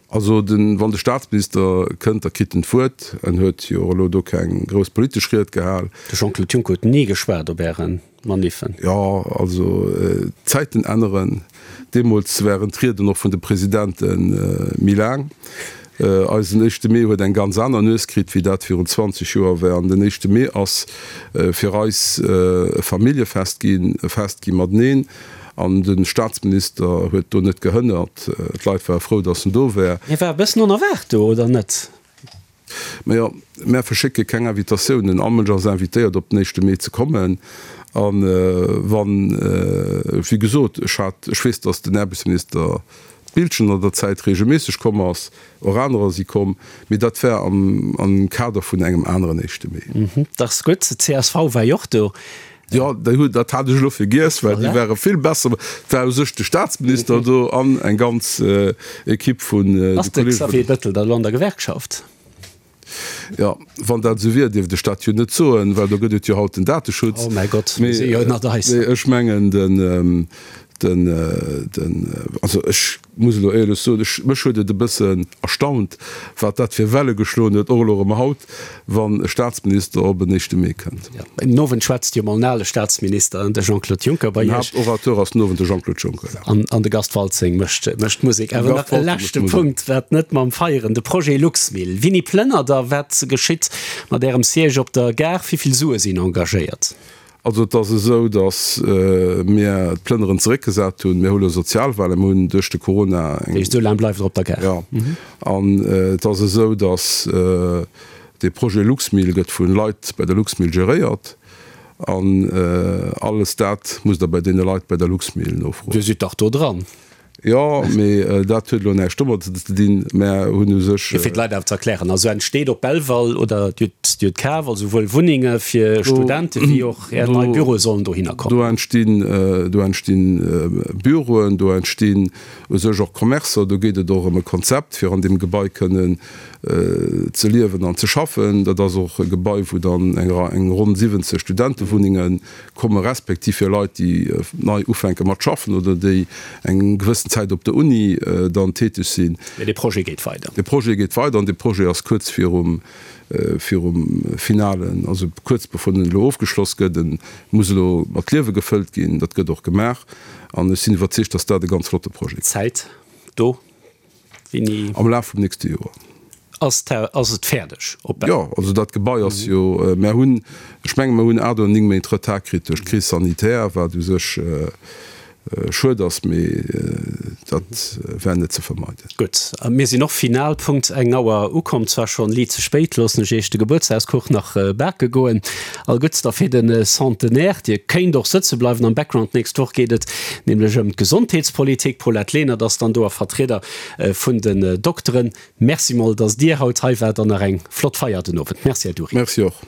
Also den, wann de Staatsminister kënnt, da kritt en d'Wuert. En huet jo elo do keng grouss politesch Ried gehal.
De Jean-Claude Juncker huet ni geschwat op Äre Maniffen.
Jo, also d'Zäiten änneren. Deemools waren d'Rieden och vun de Presidente méi laang. Eisen éischte Mee huet eng ganz aner Nues kritt, wéi dat virun 20 Joer war. An den éischte Mee ass fir eis e Familljefest ginn, e Fest gi mateneen. An de Staatsminister huet do net gehënnert. D'Leit ware frou, datt en do war.
Hie war e bëssen onerwaart do, oder net?
Majo, mär verschécke keng Invitatiounen. All Mënsch ass invitéiert, op den éischte Mee ze kommen. A wann, wéi gesot, ech hat, ech weess, datt den Aarbechtsminister Biltgen an der Zäit reegelméisseg komm ass, och anerer si komm, mee dat war am Kader vun engem aneren éischte Mee.
Dat ass gutt. D'CSV war jo och do.
Jo, déi hunn, dat hat ech elo vergiess, well déi ware vill besser. Et war u sech de Staatsminister do an eng ganz Ekipp vun
de Ass de Xavier Bettel da elo an der Gewerkschaft?
Jo, wann dat esou wier, dierft ech dat jo net soen, well do gëtt et jo haut den Dateschutz.
Oh mäi Gott, mir si jo ënnert eis.
Mee ech mengen, den, den, den, also ech muss elo éierlech soen, ech, mech huet et e bëssen erstaunt, wat dat fir Welle geschloen huet, och elo erëm haut, wann e Staatsminister op en éischte Mee kënnt.
Jo, den Owend schwätzt jo mol en ale Staatsminister, de Jean-Claude Juncker, bei
Den Iech. Haaptorateur ass den Owend de Jean-Claude Juncker,
ja. An, an de Gast Waltzing mécht, mécht d'Musek. Awer nach e leschte Punkt, wat net mam Feieren, de Projet Luxmil. Wini plënnert Der? Wat geschitt mat Ärem Siège op der Gare? Wéi vill Sue sinn engagéiert?
Also et ass esou, datt mir d'Plënneren zeréckgesat hunn. Mir hu lo Sozialwahlen, mir hunn duerch de Corona
eng. Dat heescht, esou laang bleift Der op der Gare?
Jo. An et ass esou, datt dee Projet Luxmil gëtt vu Leit bei der Luxmil geréiert. An alles dat musst Der bei deene Leit bei der Luxmil nofroen.
Dir sidd dach do dran.
Jo, mee dat huet elo näischt domadder ze dinn. Mär hunn u sech.
Fir d'Leit awer ze erklären, also entsteet op Belval oder Dir hutt Dir hutt kaf, also souwuel Wunnenge fir Studente wéi och Är nei Büroe sollen dohinner kommen.
Do entstinn, do entstinn Büroen, do entstinn u sech och Commercer. Do geet et och ëm e Konzept, fir an deem Gebai kënnen ze liewen an ze schaffen. Dat ass och e Gebai, wou dann eng eng ronn 70 Studentewunnenge komme respektiv fir Leit, déi nei ufänke mat schaffen oder déi eng gewëssen Zäit op der Uni dann täteg sinn.
Mee dee Projet geet weider.
Dee Projet geet weider an dee Projet ass kuerz virum, virum finalen, also kuerz bevor en elo ofgeschloss gëtt. En muss elo mat Liewe gefëllt ginn. Dat gëtt och gemaach an ech sinn iwwerzeegt, dass dat e ganz flotte Projet
gëtt. Zäit do?
Wéini? Am Laf vum nächste Joer.
Ass ass et fäerdeg
op Bel? Jo, also dat Gebai ass jo, mär hunn, ech menge mer hunn 8 oder 9 Méint Retard kritt duerch d'Crise sanitaire, wat u sech. Schued ass, mee dat war net ze vermeiden.
Gutt, mir sinn och final Punkt eng Auer ukomm, zwar schonn liit ze spéit, loossen ech iech de Gebuertsdagskuch nach bake goen. All Gudds da fir de Centenaire. Dir kéint och sëtze bleiwen am Background. D'nächst Woch geet et nämlech ëm d'Gesondheetspolitik. D'Paulette Lenert ass dann do a Vertrieder vun den Dokteren. Merci mol, dass Dir haut hei waart an nach eng flott Feier den Owend. Merci, Här Dury.
Merci och.